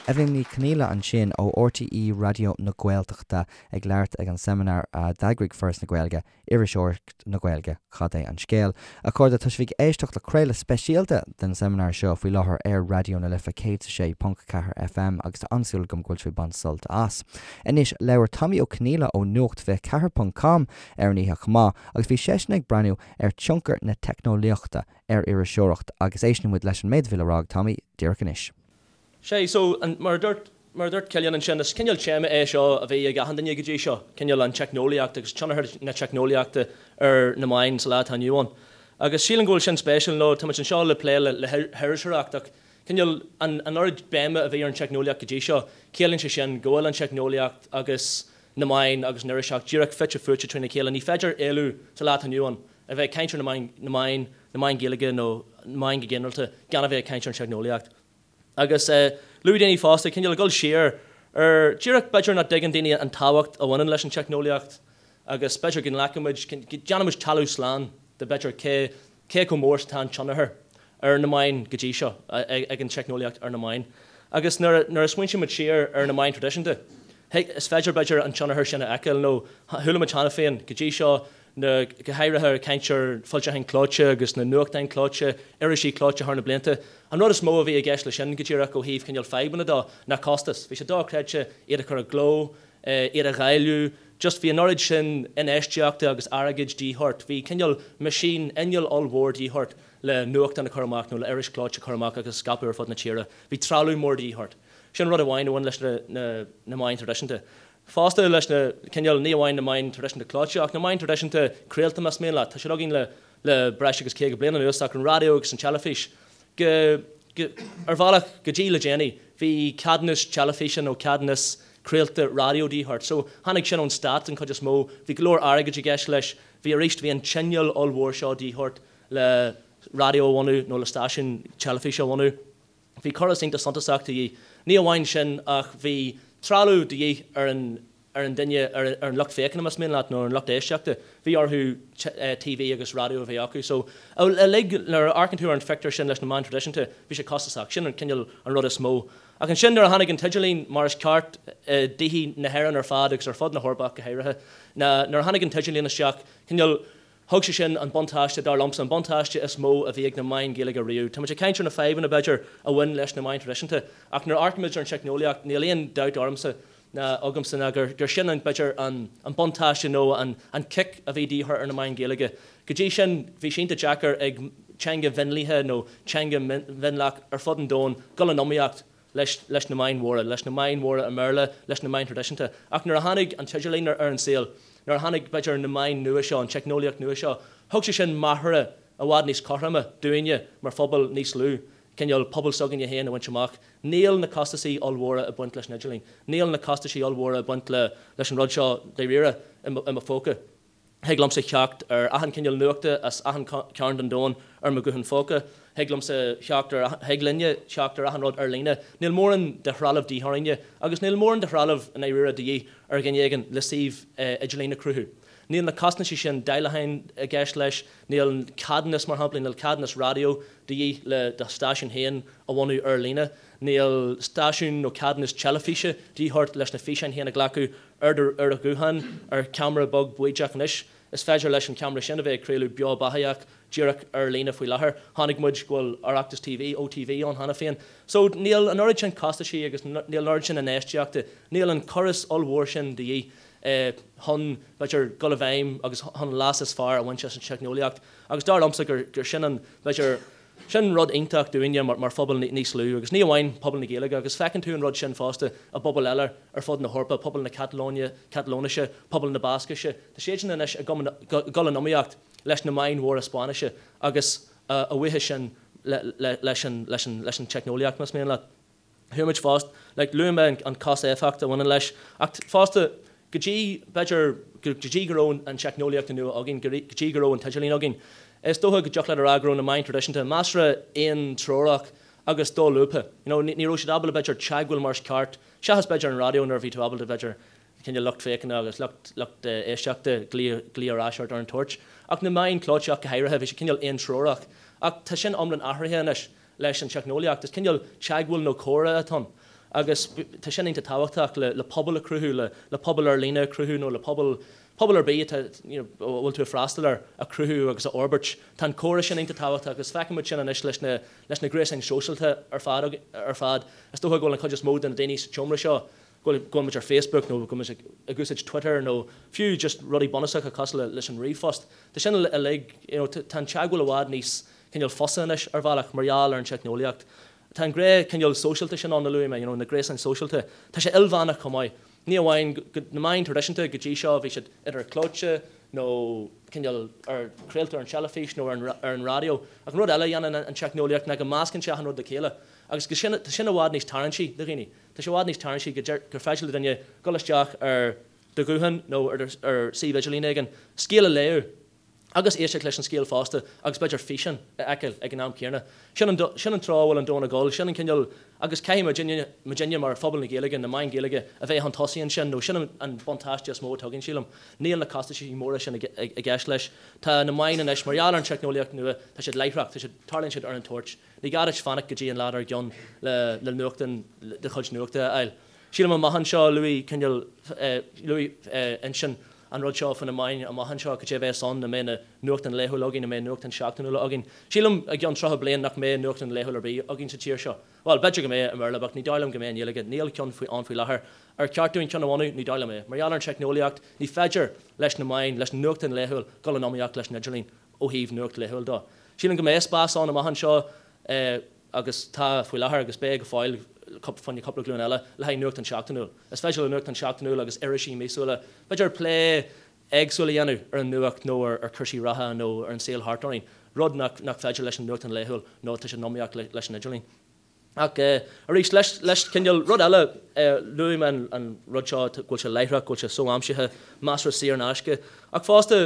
Eibhlín Ní Chonghaile ansin ó RTÉ Raidió na Gaeltachta ag labhairt ag an seimineár a d'eagraigh Foras na Gaeilge, Iriseoireacht na Gaeilge, Cad é an Scéal? A chairde, tá sibh ag éisteacht le craoladh speisialta den seimineár seo faoi láthair ar Raidió na Life 106.4 FM agus tá an-súil agam go bhfuil sibh ag baint sult as. Anois, labhair Tommy Ó Conghaile ó Nuacht 24 ponc com ar an oíche chomh maith agus bhí seisean ag breathnú ar tionchar na teicneolaíochta ar iriseoireacht agus éisteann muid leis an méid a bhí le rá ag Tommy díreach anois. Sea, so, an, mar a dúirt, mar a dúirt Cillian ansin, is cineál téama é seo a bhí ag achan duine go dtí seo, cineál an teicneolaíocht agus tionchar na teicneolaíochta ar na meáin sa lá atá inniu ann. Agus sílim go bhfuil sin spéisiúil, nó tá muid anseo le plé le, le hiriseoireacht ach cineál an, an oiread béime a bhí ar an teicneolaíocht go dtí seo, ciallaíonn sé sin go bhfuil an teicneolaíocht agus na meáin agus an iriseoireacht díreach fite fuaite trína chéile. Ní féidir éalú sa lá atá inniu ann a bheith ag caint ar na meáin, na meáin, na meáin Ghaeilge nó na meáin go ginearálta gan a bheith ag caint ar an teicneolaíocht. Agus luaigh daoine fosta, cineál ag dul siar ar, díreach b'fhéidir nach dtuigeann daoine an tábhacht a bhaineann leis an teicneolaíocht agus b'fhéidir go nglacann muid, go déanann muid talamh slán de b'fhéidir cé, cé chomh mór is atá an tionchar ar na meáin go dtí seo ag an teicneolaíocht ar na meáin. Agus nuair a smaointíonn muid siar ar na meáin traidisiúnta, is féidir, b'fhéidir, an tionchar sin a fheiceáil nó chuala muid cheana féin go dtí seo, na, go háirithe ag caint ar foilseacháin clóite agus na nuachtáin clóite, irisí clóite thar na blianta. An rud is mó a bhí i gceist leis sin go díreach ó thaobh cineál fadhbanna dó ná costas. Bhí sé dochreidte iad a chur i gcló, iad a dháileadh, just bhí an oiread sin infheistíochta agus airgid de dhíth ort. Bhí cineál machine, inneall ollmhór de dhíth ort le nuachtán a chur amach nó le iris chlóite a chur amach agus a scaipeadh ar fud na tíre. Bhí trealamh mór de dhíth ort. Sin rud amháin a bhain leis na na meáin traidisiúnta. Fosta leis na, cineál, ní amháin na meáin traidisiúnta clóite ach na meáin traidisiúnta craolta más mian leat. Tá siad againn le le breis agus 50 bliain anuas ach an raidió agus an teilifís go, go, ar bhealach go dtí le déanaí bhí ceadúnas teilifíse nó ceadúnas craolta raidió de dhíth ort. So tháinig sin ón stát an chuid is mó. Bhí go leor airgid i gceist leis. Bhí arís, bhí an t-inneall ollmhór seo de dhíth ort le raidió a bhunú nó le stáisiún teilifíse a bhunú. Bhí córas iontach suntasach de dhíth. Ní amháin sin ach bhí trealamh de dhíth ar an ar an duine, ar an lucht féachana más mian leat, nó ar an lucht éisteachta. Bhí orthu TV agus raidió a bheith acu. So uilig, nuair a amharcann tú ar an phictiúr sin leis na meáin traidisiúnta, bhí sé costasach. Sin an cineál an rud is mó. Ach ansin nuair a tháinig an t-idirlíon mar is ceart i dtithe na hÉireann ar fad agus ar fud na hEorpa ach go háirithe, ná nuair a tháinig an t-idirlíon isteach, cineál, Thug sé sin an buntáiste, dar liomsa, an buntáiste is mó a bhí ag na meáin Ghaeilge riamh. Tá muid ag caint ar na fadhbanna, b'fhéidir, a bhain leis na meáin traidisiúnta, ach nuair a amharcaimid ar an teicneolaíocht, níl aon dabht ormsa ná agamsa ná gur gur sin an, b'fhéidir, an an buntáiste nó an an cic a bhí de dhíth ar na meáin Ghaeilge. Go dtí sin, bhí sé iontach deacair ag teanga mhionlaithe nó teanga mhionlach ar fud an domhain dul in iomaíocht leis leis na meáin mhóra, leis na meáin mhóra i mBéarla, leis na meáin thraidisiúnta. Ach nuair a tháinig an t-idirlíon ar an saol, nuair a tháinig, b'fhéidir, na meáin nua seo, an teicneolaíocht nua seo, thug sé sin machaire i bhfad níos cothroime dúinne mar phobal níos lú, cineál pobal s'againne féin a bhaint amach. Níl na costaisí ollmhóra ag baint leis an idirlíon. Níl na costaisí ollmhóra ag baint le leis an rud seo dáiríre i mo phóca. Thig liomsa theacht ar achan cineál nuachta as achan cearn den domhan ar mo ghuthán phóca. Thig liomsa theacht ar, thig linne theacht ar achan rud ar líne. Níl mórán de threalamh de dhíth orainne agus níl mórán de threalamh i ndáiríre de dhíth ar dhuine éigin le suíomh idirlín a chruthú. Níl na costaisí sin dáileacháin i gceist leis, níl ceadúnas, mar shampla, níl ceadúnas raidió de dhíth le do stáisiún féin a bhunú ar líne, níl stáisiún nó ceadúnas teilifíse de dhíth ort leis na físeáin féin a ghlacadh ar do ar do ghuthán, ar cheamara beag baoideach anois. Is féidir leis an cheamara sin a bheith ag craoladh beo beathaitheach díreach ar líne faoi láthair. Chonaic muid go bhfuil Oireachtas TV, OTV, ann cheana féin. So níl an oiread sin costaisí agus níl an oiread sin infheistíochta, níl an córas ollmhór sin de dhíth chun, b'fhéidir, dul i bhfeidhm agus chun an leas is fearr a bhaint as an teicneolaíocht. Agus dar liomsa gur gur sin an, b'fhéidir, Sin rud iontach dúinne mar phobal níos lú, agus ní amháin pobal na Gaeilge, agus feiceann tú an rud sin fosta i bpobail eile ar fud na hEorpa, pobal na Catalóine, Catalóinise, pobal na Bascaise, tá siadsan anois ag dul in iomaíocht leis na meáin mhóra Spáinnise agus a bhuíochas sin leis an teicneolaíocht, más mian leat. Chuaigh muid fosta, like, luaigh mé an cost-éifeacht a bhaineann leis, ach fosta, go dtí, b'fhéidir, go dtí go raibh an teicneolaíocht nua againn, go dtí go raibh an t-idirlíon againn, is dócha go dtiocfadh leat a rá go raibh na meáin traidisiúnta measartha aontreorach agus dolúbtha. You know, ní raibh siad ábalta, b'fhéidir, teagmháil mar is ceart, seachas, b'fhéidir, an raidió nuair a bhí tú ábalta, b'fhéidir, cineál lucht féachana agus lucht, lucht éisteachta glaoch, glaoch ar ais ort ar an toirt. Ach na meáin clóite ach go háirithe, bhí siad cineál aontreorach. Ach tá sin iomlán athraithe anois. leis an teicneolaíocht. Is cineál teagmháil nó comhrá atá ann agus tá sin iontach tábhachtach le pobal a chruthú, le pobal ar líne a chruthú nó le pobal, pobal ar bith atá, you know, a bhfuil tú ag freastal air a chruthú agus a fhorbairt. Tá an comhrá sin iontach tábhachtach agus feiceann muid sin anois leis na, leis na gréasáin shóisialta ar fad, ar fad. Is dócha go bhfuil an chuid is mó de na daoine sa tseomra seo, go bhfuil, go bhfuil muid ar Facebook nó go bhfuil muid ag úsáid Twitter nó fiú just rudaí bunúsacha cosúil leis an ríomhphost. Tá sin uilig, you know, tá an teagmháil i bhfad níos, cineál fusa anois ar bhealach mar gheall ar an teicneolaíocht. Tá an gné cineál sóisialta sin ann a luaigh mé, you know, na gréasáin sóisialta. Tá sé ilmheánach chomh maith. Ní amháin go, na meáin traidisiúnta go dtí seo bhí siad idir clóite nó cineál ar, craolta ar an teilifís nó ar an, ar an raidió. Ach an rud eile a dhéanann an teicneolaíocht ná go meascann sé achan rud le chéile agus go sin, tá sin i bhfad níos tarraingtí do dhaoine. Tá sé i bhfad níos tarraingtí go deir, gur féidir le duine dul isteach ar do ghuthán nó ar, ar suíomh idirlín éigin, scéal a léamh. Agus éisteacht leis an scéal fosta agus b'fhéidir físeán a fheiceáil ag an am céanna. Sin an, sin an treo a bhfuil an domhan ag dul, sin an cineál, agus caithfidh muidinne, muidinne mar phobal na Gaeilge, na meáin Ghaeilge, a bheith chun tosaigh ansin nó sin an, an buntáiste is mó atá againn, sílim. Níl na costaisí móra sin i, i gceist leis. Tá na meáin anois, mar gheall ar an teicneolaíocht nua, tá siad láithreach, tá siad, tarlaíonn siad ar an toirt. Ní gá duit fanacht go dtí an lá dár gcionn le, le nuachtán, do chuid nuachta a fháil. Sílim amach anseo, luaigh cineál, luaigh Uinsionn an rud seo faoi na meáin amach anseo, cad é a bheas ann, an mbeidh na nuachtán laethúil againn, an mbeidh nuachtán seachtainiúla againn. Sílim i gceann 30 bliain nach mbeidh nuachtán laethúil ar bith againn sa tír seo. Bhuel, b'fhéidir go mbeidh i mBéarla, but ní dóigh liom go mbeidh i nGaeilge. Níl ceann faoi ann faoi láthair. Ar cheart dúinn ceann a bhunú? Ní dóigh liom é. Mar gheall ar an teicneolaíocht, ní féidir leis na meáin, leis an nuachtán laethúil dul in iomaíocht leis an idirlíon ó thaobh nuacht laethúil dó. Sílim go mbeidh spás ann amach anseo, agus tá faoi láthair agus beidh go fóill fá choinne cúpla glúin eile, le haghaidh nuachtán seachtainiúil. Is féidir le nuachtán seachtainiúil agus irisí míosúla, b'fhéidir, plé éagsúil a dhéanamh ar an nuacht nó ar chúrsaí reatha nó ar an saol thart orainn, rud nach féidir leis an nuachtán laethúil nó tá sé in iomaíocht leis an idirlíon. Ach arís, leis, leis, cineál, rud eile, luaigh mé an rud seo, go bhfuil sé láithreach, go bhfuil sé so-aimsithe, measartha saor in aisce, ach fosta,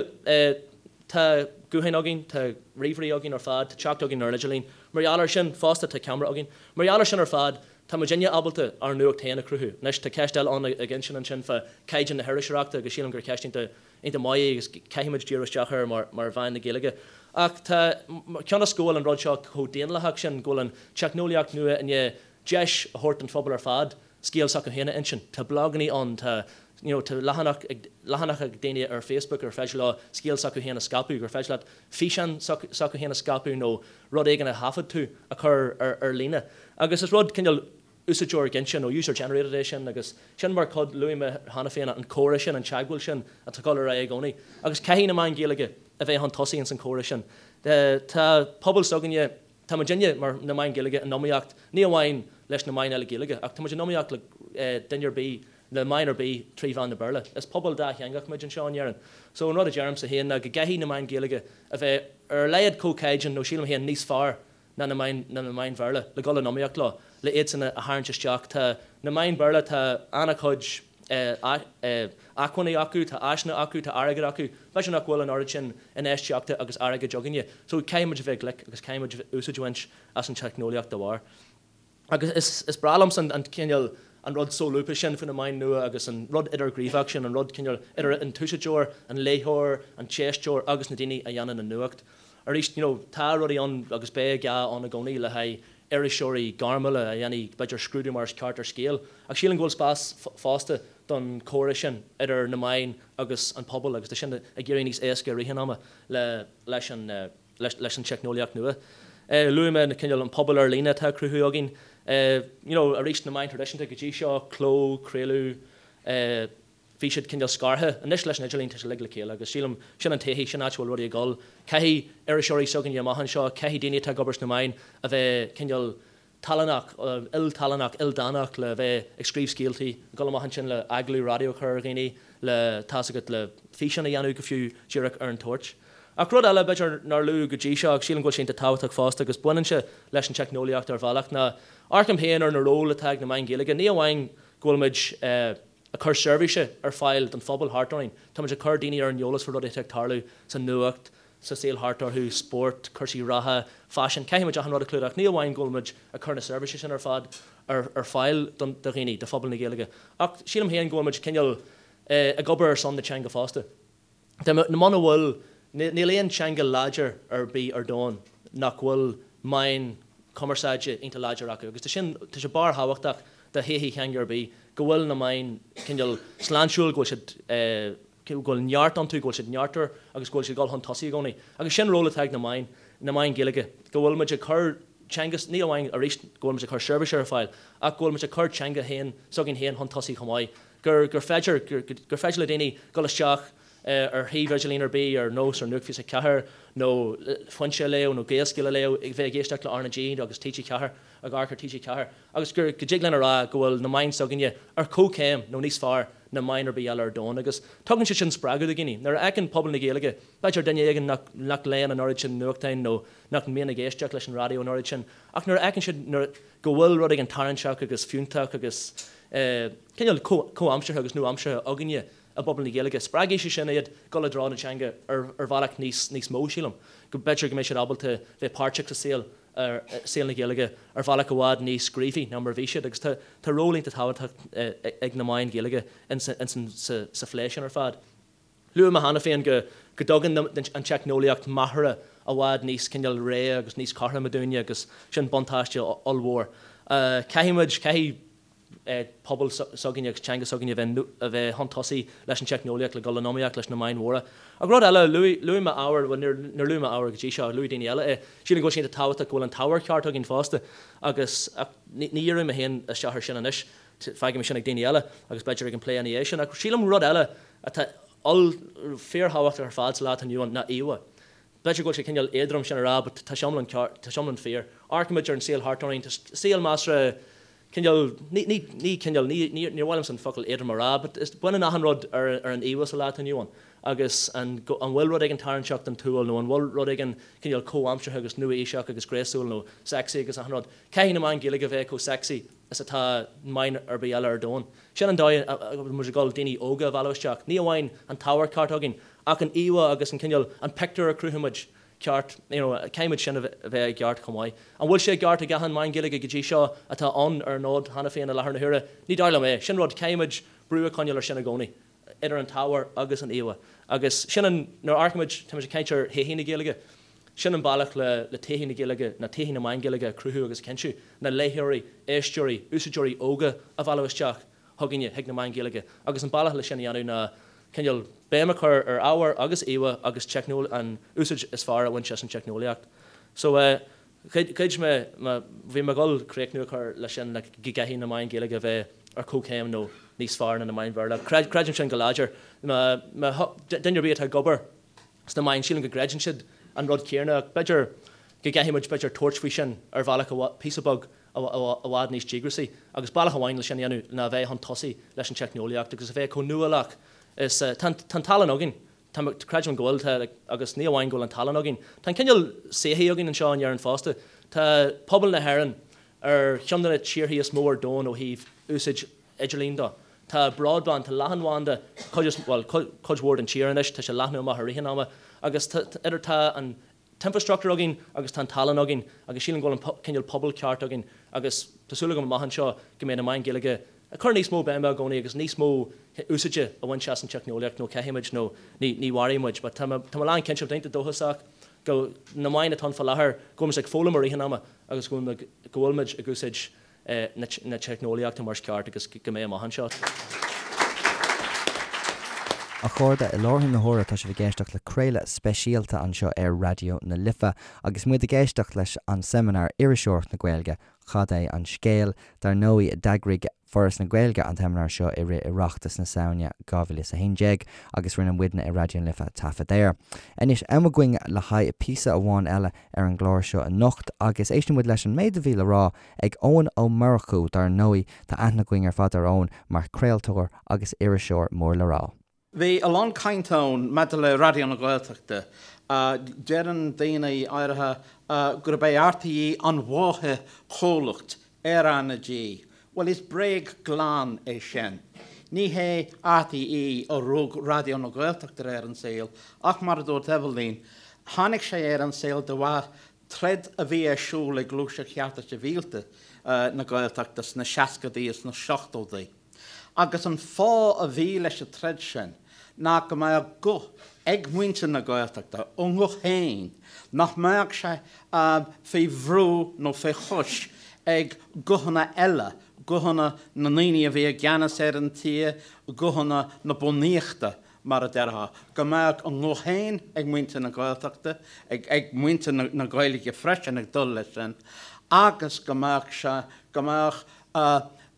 Tá gutháin againn, tá ríomhairí againn ar fad, tá teacht againn ar an idirlíon. Mar gheall air sin, fosta, tá ceamara againn. Mar gheall air sin ar fad, tá muidinne ábalta ár nuacht féin a chruthú. Anois, tá ceist eile ann ag Uinsionn ansin fá chaighdeán na hiriseoireachta agus sílim gur ceist iontach, iontach maith í agus caithfimid díriú isteach air mar, mar mheáin na Gaeilge. Ach tá, cionn is go bhfuil an rud seo chomh daonlathach sin, go bhfuil an teicneolaíocht nua i ndiaidh deis a thabhairt don phobal ar fad scéal s'acu féin a insint. Tá blagannaí ann, tá you know tá leathanach ag, leathanach ag daoine ar Facebook ar féidir leo scéal s'acu féin a scaipeadh, gur féidir leat físeán s'acu féin a scaipeadh nó rud éigin a thaifead tú a chur ar, ar líne. Agus is rud cineál úsáideoir ginte nó user generated é sin agus sin mar chuid, luaigh mé cheana féin an comhrá sin, an teagmháil sin atá ag dul ar aghaidh i gcónaí. Agus caithfidh na meáin Ghaeilge a bheith chun tosaigh ins an chomhrá sin. Tá pobal s'againne, Tá muidinne, mar na meáin Ghaeilge, in iomaíocht ní amháin leis na meáin eile Gaeilge, ach tá muid in iomaíocht le duine ar bith, le meáin ar bith trí mheán na Béarla. Is pobal dátheangach muid anseo in Éirinn. So an rud a deirimse féin ná go gcaithfidh na meáin Ghaeilge a bheith ar a laghad chomh caighdeán nó sílim féin níos fearr ná na meáin, ná na meáin Bhéarla le dhul in iomaíocht leo, le iadsan a tharraingt isteach. Tá na meáin Bhéarla, tá an-chuid. acmhainní acu, tá áiseanna acu, tá airgead acu. B'fhéidir nach bhfuil an oiread sin infheistíochta agus airgid againne. So caithfidh muid a bheith glic agus caithfidh muid úsáid a bhaint as an teicneolaíocht dá bharr. Agus is is breá liomsa an cineál, an rud solúbtha sin faoi na meáin nua agus an rud idirghníomhach sin, an rud cineál idir an t-úsáideoir, an léitheoir, an t-éisteoir agus na daoine a dhéanann an nuacht. Arís, you know, tá rudaí ann agus beidh gá ann i gcónaí le haghaidh iriseoirí gairmiúla a dhéanfaidh, b'fhéidir, scrúdú mar is ceart ar scéal. Ach sílim go bhfuil spás fosta don chomhrá sin idir na meáin agus an pobal agus tá sin ag éirí níos éasca i rith an ama le leis an leis an teicneolaíocht nua. Luaigh mé na cineál an pobal ar líne atá á cruthú againn. You know, arís na meáin traidisiúnta go dtí seo, cló, craoladh, Bhí siad cineál scartha. Anois leis an idirlíon tá sé uilig le chéile agus sílim sin an todhchaí, sin áit a bhfuil rudaí ag dul. Caithfidh iriseoirí s'againne amach anseo, caithfidh daoine atá ag obair sna meáin a bheith cineál tallannach, iltallannach, ildánach le bheith ag scríobh scéaltaí, ag dul amach ansin le agallamh raidió a chur ar dhaoine, le, tá's agat, le físeán a dhéanamh go fiú díreach ar an toirt. Ach rud eile b'fhéidir nár luadh go dtí seo ach sílim go bhfuil sé iontach tábhachtach fosta agus baineann sé leis an teicneolaíocht ar bhealach ná amharcaim féin ar na ról atá ag na meáin Ghaeilge, ní amháin go bhfuil muid eh, ag cur seirbhíse ar fáil don phobal thart orainn. Táimid ag cur daoine ar an eolas faoi rudaí atá ag tarlú sa nuacht, sa saol thart orthu, spórt, cúrsaí reatha, faisean, caithfidh muid achan rud a chlúdach. Ní amháin go bhfuil muid ag cur na seirbhíse sin ar fad ar fáil do dhaoine, do phobal na Gaeilge, ach sílim féin go bhfuil muid cineál ag obair ar son na teanga fosta. Muna bhfuil, níl aon teanga láidir ar bith ar domhan nach bhfuil meáin cumarsáide iontach láidir acu agus tá sin, tá sé barrthábhachtach do thodhchaí theanga ar bith go bhfuil na meáin cineál sláintiúil, go bhfuil siad, go bhfuil neart iontu, go bhfuil siad neartmhar agus go bhfuil siad ag dul chun tosaigh i gcónaí. Agus sin ról atá ag na meáin, na meáin Ghaeilge, go bhfuil muid ag cur teanga, ní amháin arís go bhfuil muid ag cur seirbhíse ar fáil ach go bhfuil muid ag cur teanga féin, s'againn féin chun tosaigh chomh maith. gur gur féidir gur féidir le daoine dul isteach ar shuíomh idirlín ar bith, ar nós ar Nuacht 24 nó Foinse a léamh nó Gaelscéal a léamh, ag bheith ag éisteacht le RnaG agus TG4, ag amharc ar TG4, agus gur go dtig linn a rá go bhfuil na meáin s'againne ar comhchéim nó níos fearr ná meáin ar bith eile ar domhan. Agus tugann sé sin spreagadh do dhaoine. Nuair a fheiceann pobal na Gaeilge, b'fhéidir duine éigin nach nach léann an oiread sin nuachtáin nó nach mbíonn ag éisteacht leis an raidió an oiread sin, ach nuair a fheiceann siad nuair go bhfuil rud éigin tarraingteach agus fiúntach agus cineál comhaimseartha agus nua-aimseartha againne. i bpobal na Gaeilge, spreagfaidh sé sin iad dul i dtreo na teanga ar bhealach níos níos mó, sílim. Go b'fhéidir go mbeidh siad ábalta bheith páirteach sa saol, saol na Gaeilge ar bhealach i bhfad níos gníomhaí ná mar a bhí siad agus tá tá ról iontach tábhachtach ag na meáin Ghaeilge ins sa phlé sin ar fad. Luaigh mé cheana féin go go dtugann an teicneolaíocht machaire i bhfad níos cineál réidh agus níos cothroime dúinne agus sin buntáiste ollmhór. Caithfidh muid, caithfidh pobal s'againne agus teanga s'againne a bheith a bheith chun tosaigh leis an teicneolaíocht le dul in iomaíocht leis na meáin mhóra. Ach rud eile, luaigh luaigh mé ábhar, bhuel níor níor luaigh mé ábhar go dtí seo, luaigh daoine eile é. Sílim go bhfuil sé iontach tábhachtach go bhfuil an t-ábhar ceart againn fosta agus ach ní ní dhíreoidh mé féin isteach ar sin anois, fágfaidh mé sin ag daoine eile agus b'fhéidir ag an plé ina dhiaidh sin. Ach sílim rud eile atá oll fíorthábhachtach ar fad sa lá atá inniu ann ná íomhá. B'fhéidir go bhfuil sé cineál éadrom sin a rá but tá sé iomlán ceart, tá sé iomlán fíor. Amharcaimid ar an saol thart orainn, tá saol measartha cineál, ní, ní, ní cineál, ní, ní, níor mhaith liomsa an focal éadrom a rá but is, baineann achan rud ar, ar an íomhá sa lá atá inniu ann agus an, an bhfuil rud éigin tarraingteach don tsúil nó an bhfuil rud éigin cineál comhaimseartha agus nua-aoiseach agus gréasúil nó sexy agus achan rud. Caithfidh na meáin Ghaeilge a bheith chomh sexy is atá meáin ar bith eile ar domhan. Sin an dóigh a bhfuil muid ag dul daoine óga a mhealladh isteach. Ní amháin an t-ábhar ceart againn ach an íomhá agus an cineál, an pictiúr a chruthaímid ceart, you know, caithfimid sin a bheith i gceart chomh maith. An bhfuil sé i gceart ag achan meán Gaeilge go dtí seo atá ann ar an fhód cheana féin i láthair na huaire? Ní dóigh liom é. Sin rud, caithfimid brú a choinneáil ar sin i gcónaí, idir an t-ábhar agus an íomhá. Agus sin an, nuair a amharcaimid, táimid ag caint ar thodhchaí na Gaeilge, sin an bealach le le todhchaí na Gaeilge, ná todhchaí na meán Gaeilge a chruthú agus a chinntiú, ná léitheoirí, éisteoirí, úsáideoirí óga a mhealladh isteach. chugainne, chuig na meáin Ghaeilge, agus an bealach le sin a dhéanamh ná cineál béim a chur ar ábhar agus íomhá agus an úsáid is fearr a bhaint as an teicneolaíocht. So eh ghoid mé, bhí mé ag dul críochnú a chur leis sin like go gcaithfidh na meáin Ghaeilge a bheith ar comhchéim nó níos fearr ná na meáin Bhéarla. Creidim sin go láidir. Má duine ar bith atá ag obair sna meáin, sílim go gcreideann siad an rud céanna ach b'fhéidir go gcaithfidh muid b'fhéidir tabhairt faoi sin ar bhealach píosa beag i bhfad níos díograisí agus bealach amháin le sin a dhéanamh ná a bheith chun tosaigh leis an teicneolaíocht agus a bheith chomh nuálach is tá an tá an tallann againn tá creidim go bhfuil tá agus ní amháin go bhfuil an tallann againn tá an cineál saothaí againn anseo in Éirinn fosta tá pobal na hÉireann ar cheann de na tíorthaí is mó ar domhan ó thaobh úsáid idirlín de. Tá broadband, tá leathanbhanda cuid is, bhuel, cuid mhór den tír anois, tá sé ag leathnú amach i rith an ama agus tá, idir, tá an t-infrastructúr againn agus tá an tallann againn agus sílim go bhfuil an cineál pobal ceart againn agus tá súil agam amach anseo go mbeidh na meáin Ghaeilge ag cur níos mó béime i gcónaí agus níos mó úsáide a bhaint as an teicneolaíocht nó caithfimid nó ní, ní mhairfidh muid. But tá mé, tá mé lán cinnte, tá mé iontach dóchasach go na meáin atá ann fá láthair go bhfuil muid ag foghlaim i rith an ama agus go bhfuil, go bhfuil muid ag úsáid na teicneolaíochta mar is ceart agus go mbeidh amach anseo. A chairde, i láthair na huaire tá sibh ag éisteacht le craoladh speisialta anseo ar Raidió na Life agus muid ag éisteacht leis an seimineár Iriseoireacht na Gaeilge, Cad é an Scéal? Dar ndóigh, d'eagraigh Foras na Gaeilge an tseimineár seo i rith Oireachtas na Samhna 2011 agus rinne muidne i Raidió na Life taifead air. Anois, am againn le haghaidh píosa amháin eile ar an gclár seo anocht agus éistfidh muid leis an méid a bhí le rá ag Eoin Ó Murchú, dar ndóigh, tá aithne againn ar fad ar Eoin mar chraoltóir agus iriseoir mór le rá. Bhí a lán caint ann maidir le Raidió na Gaeltachta. Deireann daoine áirithe gurb é RTÉ an mháthair-chomhlacht ar RnaG. Bhuel, is bréag glan é sin. Ní hé RTÉ a rug Raidió na Gaeltachta ar an saol ach, mar a dúirt Eibhlín, tháinig sé ar an saol de bharr troid a bhí ar siúl ag Gluaiseacht Chearta Sibhialta na Gaeltachta sna seascadaí is sna seachtóidí. Agus an fáth a bhí leis an troid sin ná go mbeadh guth ag muintir na Gaeltachta, a nguth féin, nach mbeadh sé faoi bhrú nó faoi chois ag guthanna eile, guthanna na ndaoine a bhí i gceannas ar an tír, guthanna na bunaíochta mar a déarfá, go mbeadh a nguth féin ag muintir na Gaeltachta, ag muintir na Gaeilge freisin ag dul leis sin, agus go mbeadh sé, go mbeadh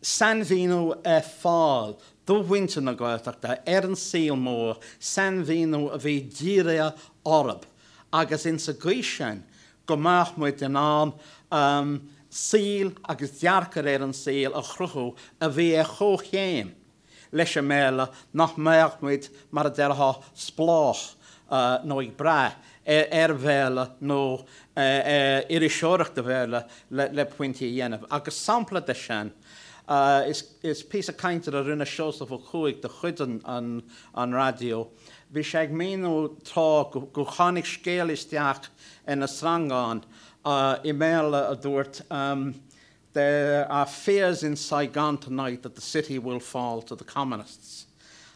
sainmhíniú ar fáil do mhuintir na Gaeltachta ar an saol mór, sainmhíniú a bhí dírithe orthu agus insa gcaoi sin go mbeadh muid in ann saol agus dearcadh ar an saol a chruthú a bhí ar chomhchéim leis an mBéarla, nach mbeadh muid, mar a déarfá, spleách nó ag brath ar Bhéarla nó ar iriseoireacht Bhéarla le pointí a dhéanamh. Agus sampla de sin. Is píosa cainte a rinne Seosamh Ó Cuaig de chuid an raidió. Bhí sé ag míniú tráth go tháinig scéal isteach ar na sreangáin i mBéarla a dúirt There are fears in Saigon tonight that the city will fall to the communists.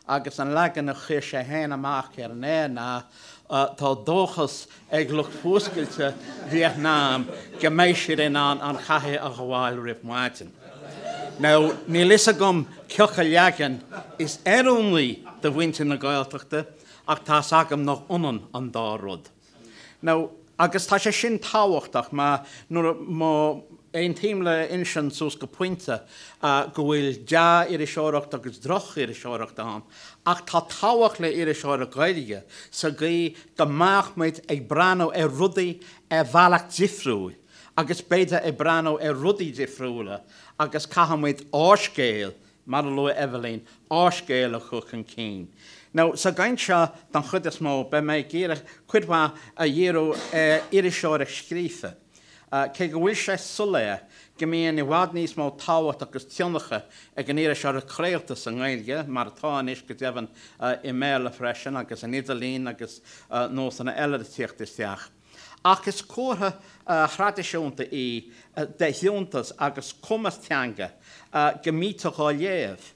Agus an leagan a chuir sé féin amach ar an aer ná Tá dóchas ag lucht fuascailte Vítneam go mbeidh siad in ann an chathair a ghabháil roimh maidin. Now, níl fhios agam cioca leagan is oiriúnaí do mhuintir na Gaeltachta ach tá's agam nach ionann an dá rud. Now, agus tá sé sin tábhachtach mar nuair a, má aontaím le Uinsionn suas go pointe go bhfuil dea-iriseoireacht agus droch-iriseoireacht ann, ach tá tábhacht le iriseoireacht Ghaeilge sa gcaoi go mbeadh muid ag breathnú ar rudaí ar bhealach difriúil agus b'fhéidir ag breathnú ar rudaí difriúla agus caithfidh muid ár scéal Mar a luaigh Eibhlín, ár scéal a chur chun cinn. Now, sa gcaint seo, don chuid is mó, beidh mé ag iarraidh cuid mhaith a dhíriú ar iriseoireacht scríofa, cé go bhfuil sé soiléir go mbíonn i bhfad níos mó tábhacht agus tionchar ag an iriseoireacht chraolta sa nGaeilge, mar atá anois go deimhin i mBéarla freisin, agus an idirlíon agus nósanna eile ag tíocht isteach. Ach is comhartha thraidisiúnta í de fhiúntas agus cumas teanga go mbítear dhá léamh,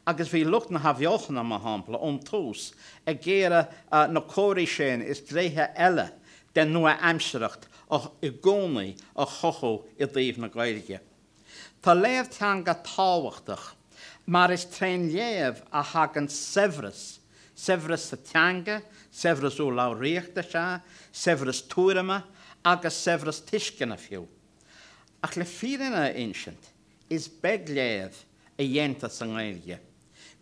agus bhí lucht na hAthbheochana, mar shampla, ón tús ag iarraidh na comharthaí sin is gnéithe eile den nua-aimsearthacht i gcónaí a chothú i dtaobh na Gaeilge. Tá léamh teanga tábhachtach mar is trén léamh a thagann saibhreas, saibhreas sa teanga, saibhreas urlabhraíochta, sea, saibhreas tuairime agus saibhreas tuisceana fiú. Ach le fírinne a insint, is beag léamh a dhéantar sa nGaeilge.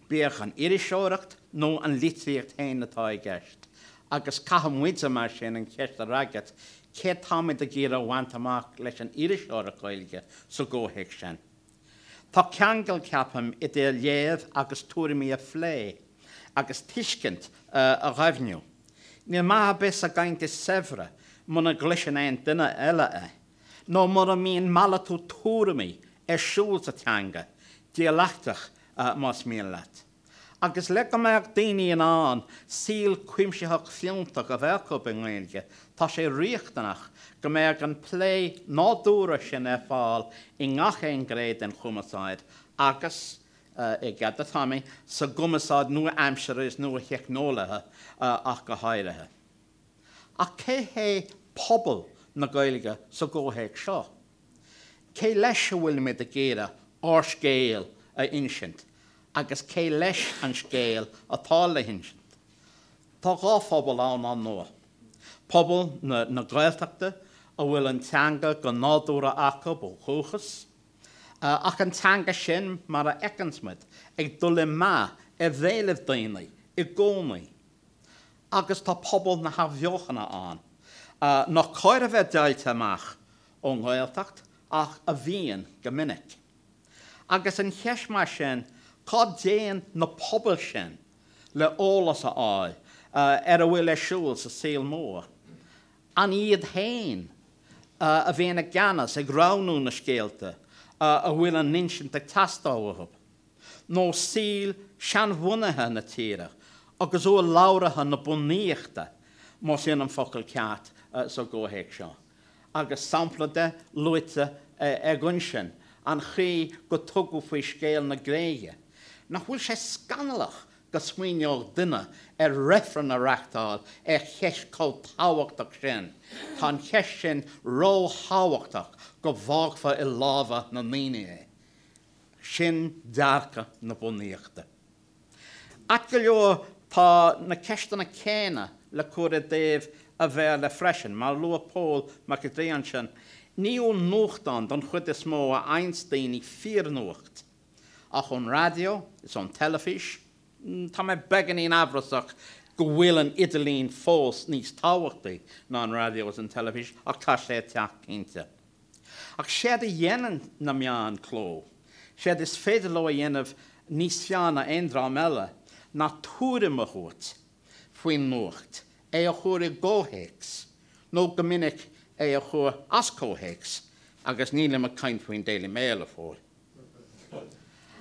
bíodh an iriseoireacht nó an litríocht féin atá i gceist, agus caithfidh muide mar sin an cheist a fhreagairt, céard táimid ag iarraidh a bhaint amach leis an iriseoireacht Ghaeilge sa gcomhthéacs sin? Tá ceangal, ceapaim, idir léamh agus tuairimí a phlé, agus tuiscint a dhoimhniú. Níl maith ar bith sa gcaint is saibhre muna gcloiseann aon duine eile é. nó mura mbíonn malartú tuairimí ar siúl sa teanga, dialaicteach más mian leat. Agus le go mbeadh daoine in ann saol cuimsitheach fiúntach a bheith acu i nGaeilge, tá sé riachtanach go mbeadh an plé nádúrtha sin ar fáil i ngach aon ghné den chumarsáid agus, i gcead do Tommy, sa gcumarsáid nua-aimseartha is nua-theicneolaithe ach go háirithe. Ach cé hé pobal na Gaeilge sa gcomhthéacs seo? Cé leis a bhfuilimid ag iarraidh ár scéal a insint agus cé leis an scéal atá le hinsint? Tá dhá phobal ann, ar ndóigh. Pobal na Gaeltachta a bhfuil an teanga go nádúrtha acu ó dhúchas, ach an teanga sin, mar a fheiceanns muid, ag dul i meath ar bhéalaibh daoine i gcónaí. Agus tá pobal na hAthbheochana ann, nach cóir a bheith deighilte amach ón nGaeltacht ach a bhíonn go minic. Agus an cheist mar sin, cá dtéann na pobail sin le eolas a fháil ar a bhfuil ar siúl sa saol mór? An iad féin a bhíonn i gceannas ag roghnú na scéalta a bhfuil a n-insint ag teastáil uathu? nó saol seanbhunaithe na tíre agus urlabhraithe na bunaíochta, más in an focal ceart sa gcomhthéacs seo, agus sampla de luaite ag Uinsionn, an chaoi go tugadh faoi scéal na Gréige. Nach bhfuil sé scannalach go smaoineodh duine ar reifreann a reachtáil ar cheist chomh tábhachtach sin, tá an cheist sin ró-thábhachtach go bhfágfar i lámha na ndaoine é. Sin dearcadh na bunaíochta. Ait go leor tá na ceisteanna céanna le cur i dtaobh an Bhéarla freisin. Mar a luaigh Pól Mac an Draoi ansin, ní ón nuachtán don chuid is mó a fhaigheanns daoine fíornuacht, ach ón raidió is ón teilifís. Tá mé beagáinín amhrasach go bhfuil an idirlíon fós níos tábhachtaí ná an raidió is an teilifís, ach tá sé ag teacht cinnte. Ach séard a dhéanann na meáin cló, séard is féidir leo a dhéanamh níos fearr ná aon dream eile, ná tuairim a thabhairt faoin nuacht, é a chur i gcomhthéacs, nó go minic é a chur as comhthéacs, agus nílim ag caint faoin Daily Mail, a Phóil.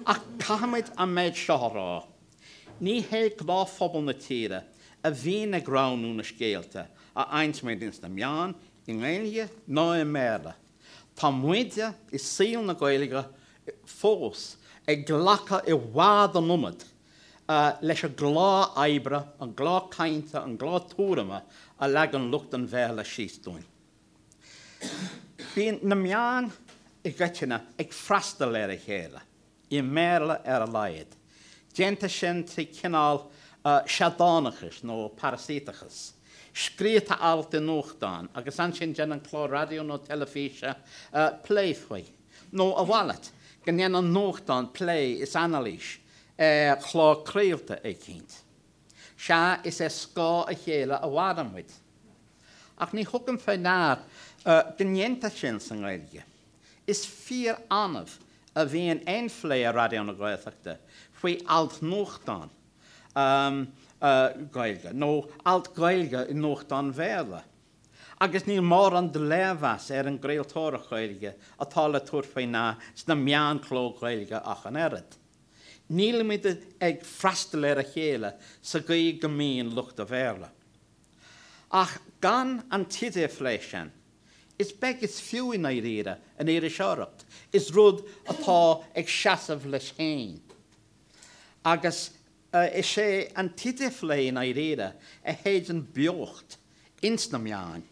Ach caithfimid an méid seo a rá, ní hé gnáthphobal na tíre a bhíonn ag roghnú na scéalta a fhaigheanns muid ins na meáin, i nGaeilge ná i mBéarla. Tá muide i saol na Gaeilge fós ag glacadh i bhfad an iomad leis an gclár oibre, an gclár cainte, an gclár tuairime a leagann lucht an Bhéarla síos dúinn. Bíonn na meáin i gcoitinne ag freastal ar a chéile, i mBéarla ar a laghad. Déantar sin trí chineál seadánachais nó parasaíteachais. Scríobhtar alt i nuachtán agus ansin déanann clár raidió nó teilifíse plé faoi. Nó a mhalairt, go ndéanann nuachtán plé is anailís ar chlár craolta eicínt. Sea, is ar scáth a chéile a mhaireann muid. Ach ní thugaim fé ndear go ndéantar sin sa nGaeilge. Is fíor-annamh a bhíonn aon phlé ar Raidió na Gaeltachta faoi alt nuachtáin Gaeilge, nó alt Gaeilge i nuachtán Bhéarla. Agus níl mórán de léirmheas ar an gcraoltóireacht Ghaeilge atá le tabhairt faoi ndear sna meáin cló Ghaeilge ach an oiread. Nílimid ag freastal ar a chéile sa gcaoi go mbíonn lucht an Bhéarla. Ach gan an t-idirphlé sin, is beag is fiú i ndáiríre an iriseoireacht, is rud atá ag seasamh leis féin. Agus is é an t-idirphlé i ndáiríre a shéideann beocht ins na meáin.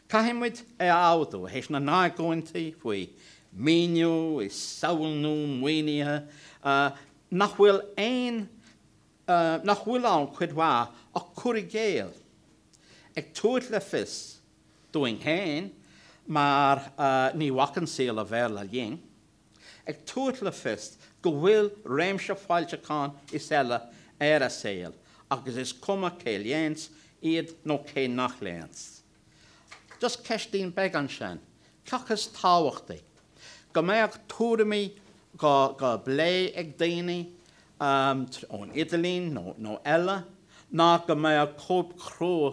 Caithfidh muid é a admhú, théis na n-argóintí faoi maoiniú is samhlú maoinithe, nach bhfuil aon, nach bhfuil ann cuid mhaith ach cur i gcéill, ag tabhairt le fios dúinn féin, mar ní bhacann saol an Bhéarla linn, ag tabhairt le fios go bhfuil réimse foilseachán is eile ar an saol agus is cuma cé léanns iad nó cé nach léanns. Just ceistín beag ansin, cé acu is tábhachtaí, go mbeadh tuairimí dhá bplé ag daoine ón idirlíon nó eile, ná go mbeadh cóip chrua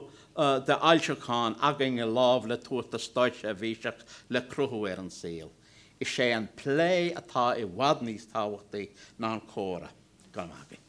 de fhoilseachán againn i lámh le tabhairt do státseirbhíseach le cruthú ar an saol? Is é an plé atá i bhfad níos tábhachtaí ná an comhrá. Go raibh maith agaibh.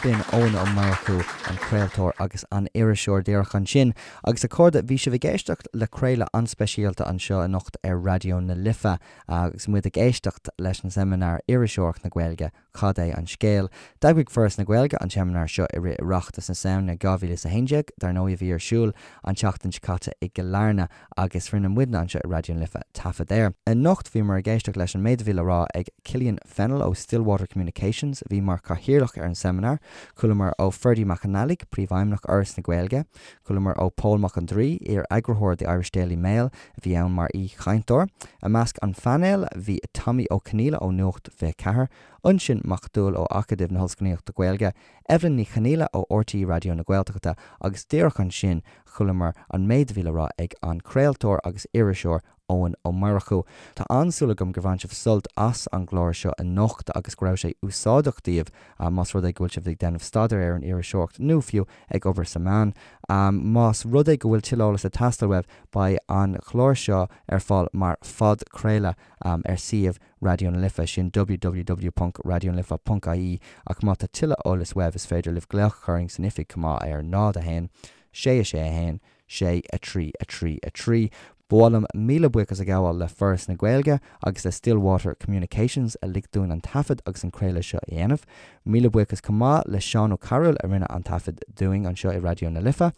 B'in Eoin Ó Murchú, an craoltóir agus an iriseoir díreach ansin. Agus a chairde, bhí sibh ag éisteacht le craoladh an-speisialta anseo anocht ar Raidió na Life agus muid ag éisteacht leis an seimineár Iriseoireacht na Gaeilge, Cad é an scéal? D'eagraigh Foras na Gaeilge an seimineár seo i rith Oireachtas na Samhna 2011, dar ndóigh, a bhí ar siúl an tseachtain seo caite i gCill Airne agus rinne muidne anseo i Raidió na Life taifead air. Anocht bhíomar ag éisteacht leis an méid a bhí le rá ag Killian Fennell ó Stillwater Communications, a bhí mar chathaoirleach ar an seimineár. Chualamar ó Ferdie Mac an Fhailigh, Príomhfheidhmeannach Fhoras na Gaeilge. Chualamar ó Pól Mac an Draoi, iar-eagarthóir The Irish Daily Mail, a bhí ann mar aoi-chainteoir. I measc an phainéil bhí Tommy Ó Conghaile ó Nuacht 24, Uinsionn Mac Dúill ó Acadamh na hOllscolaíochta Gaeilge, Evelyn Ní Chonghaile ó RTÉ Raidió na Gaeltachta agus díreach ansin chualamar an méid a bhí le rá ag an craoltóir agus iriseoir Eoin Ó Murchú. Tá an-súil agam gur bhain sibh sult as an gclár seo anocht agus go raibh sé úsáideach daoibh más rud é go bhfuil sibh ag déanamh staidéir ar an iriseoireacht nó fiú ag obair sa meán. Más rud é go bhfuil tuilleadh eolais ag teastáil uaibh beidh an clár seo ar fáil mar phodchraoladh ar suíomh Raidió na Life, sin www.raidionalife.ie ach má tá tuilleadh eolais uaibh is féidir libh glaoch a chur orainn san oifig chomh maith ar 0 1 6 6 1 6 3 3 3. Ba mhaith liom míle buíochas a ghabháil le Foras na Gaeilge agus le Stillwater Communications a lig dúinn an taifead agus an craoladh seo a dhéanamh. Míle buíochas chomh maith le Seán Ó Cearúil a rinne an taifead dúinn anseo i Raidió na Life.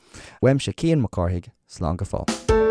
Uaimse Cian Mac Cárthaigh, slán go fóill.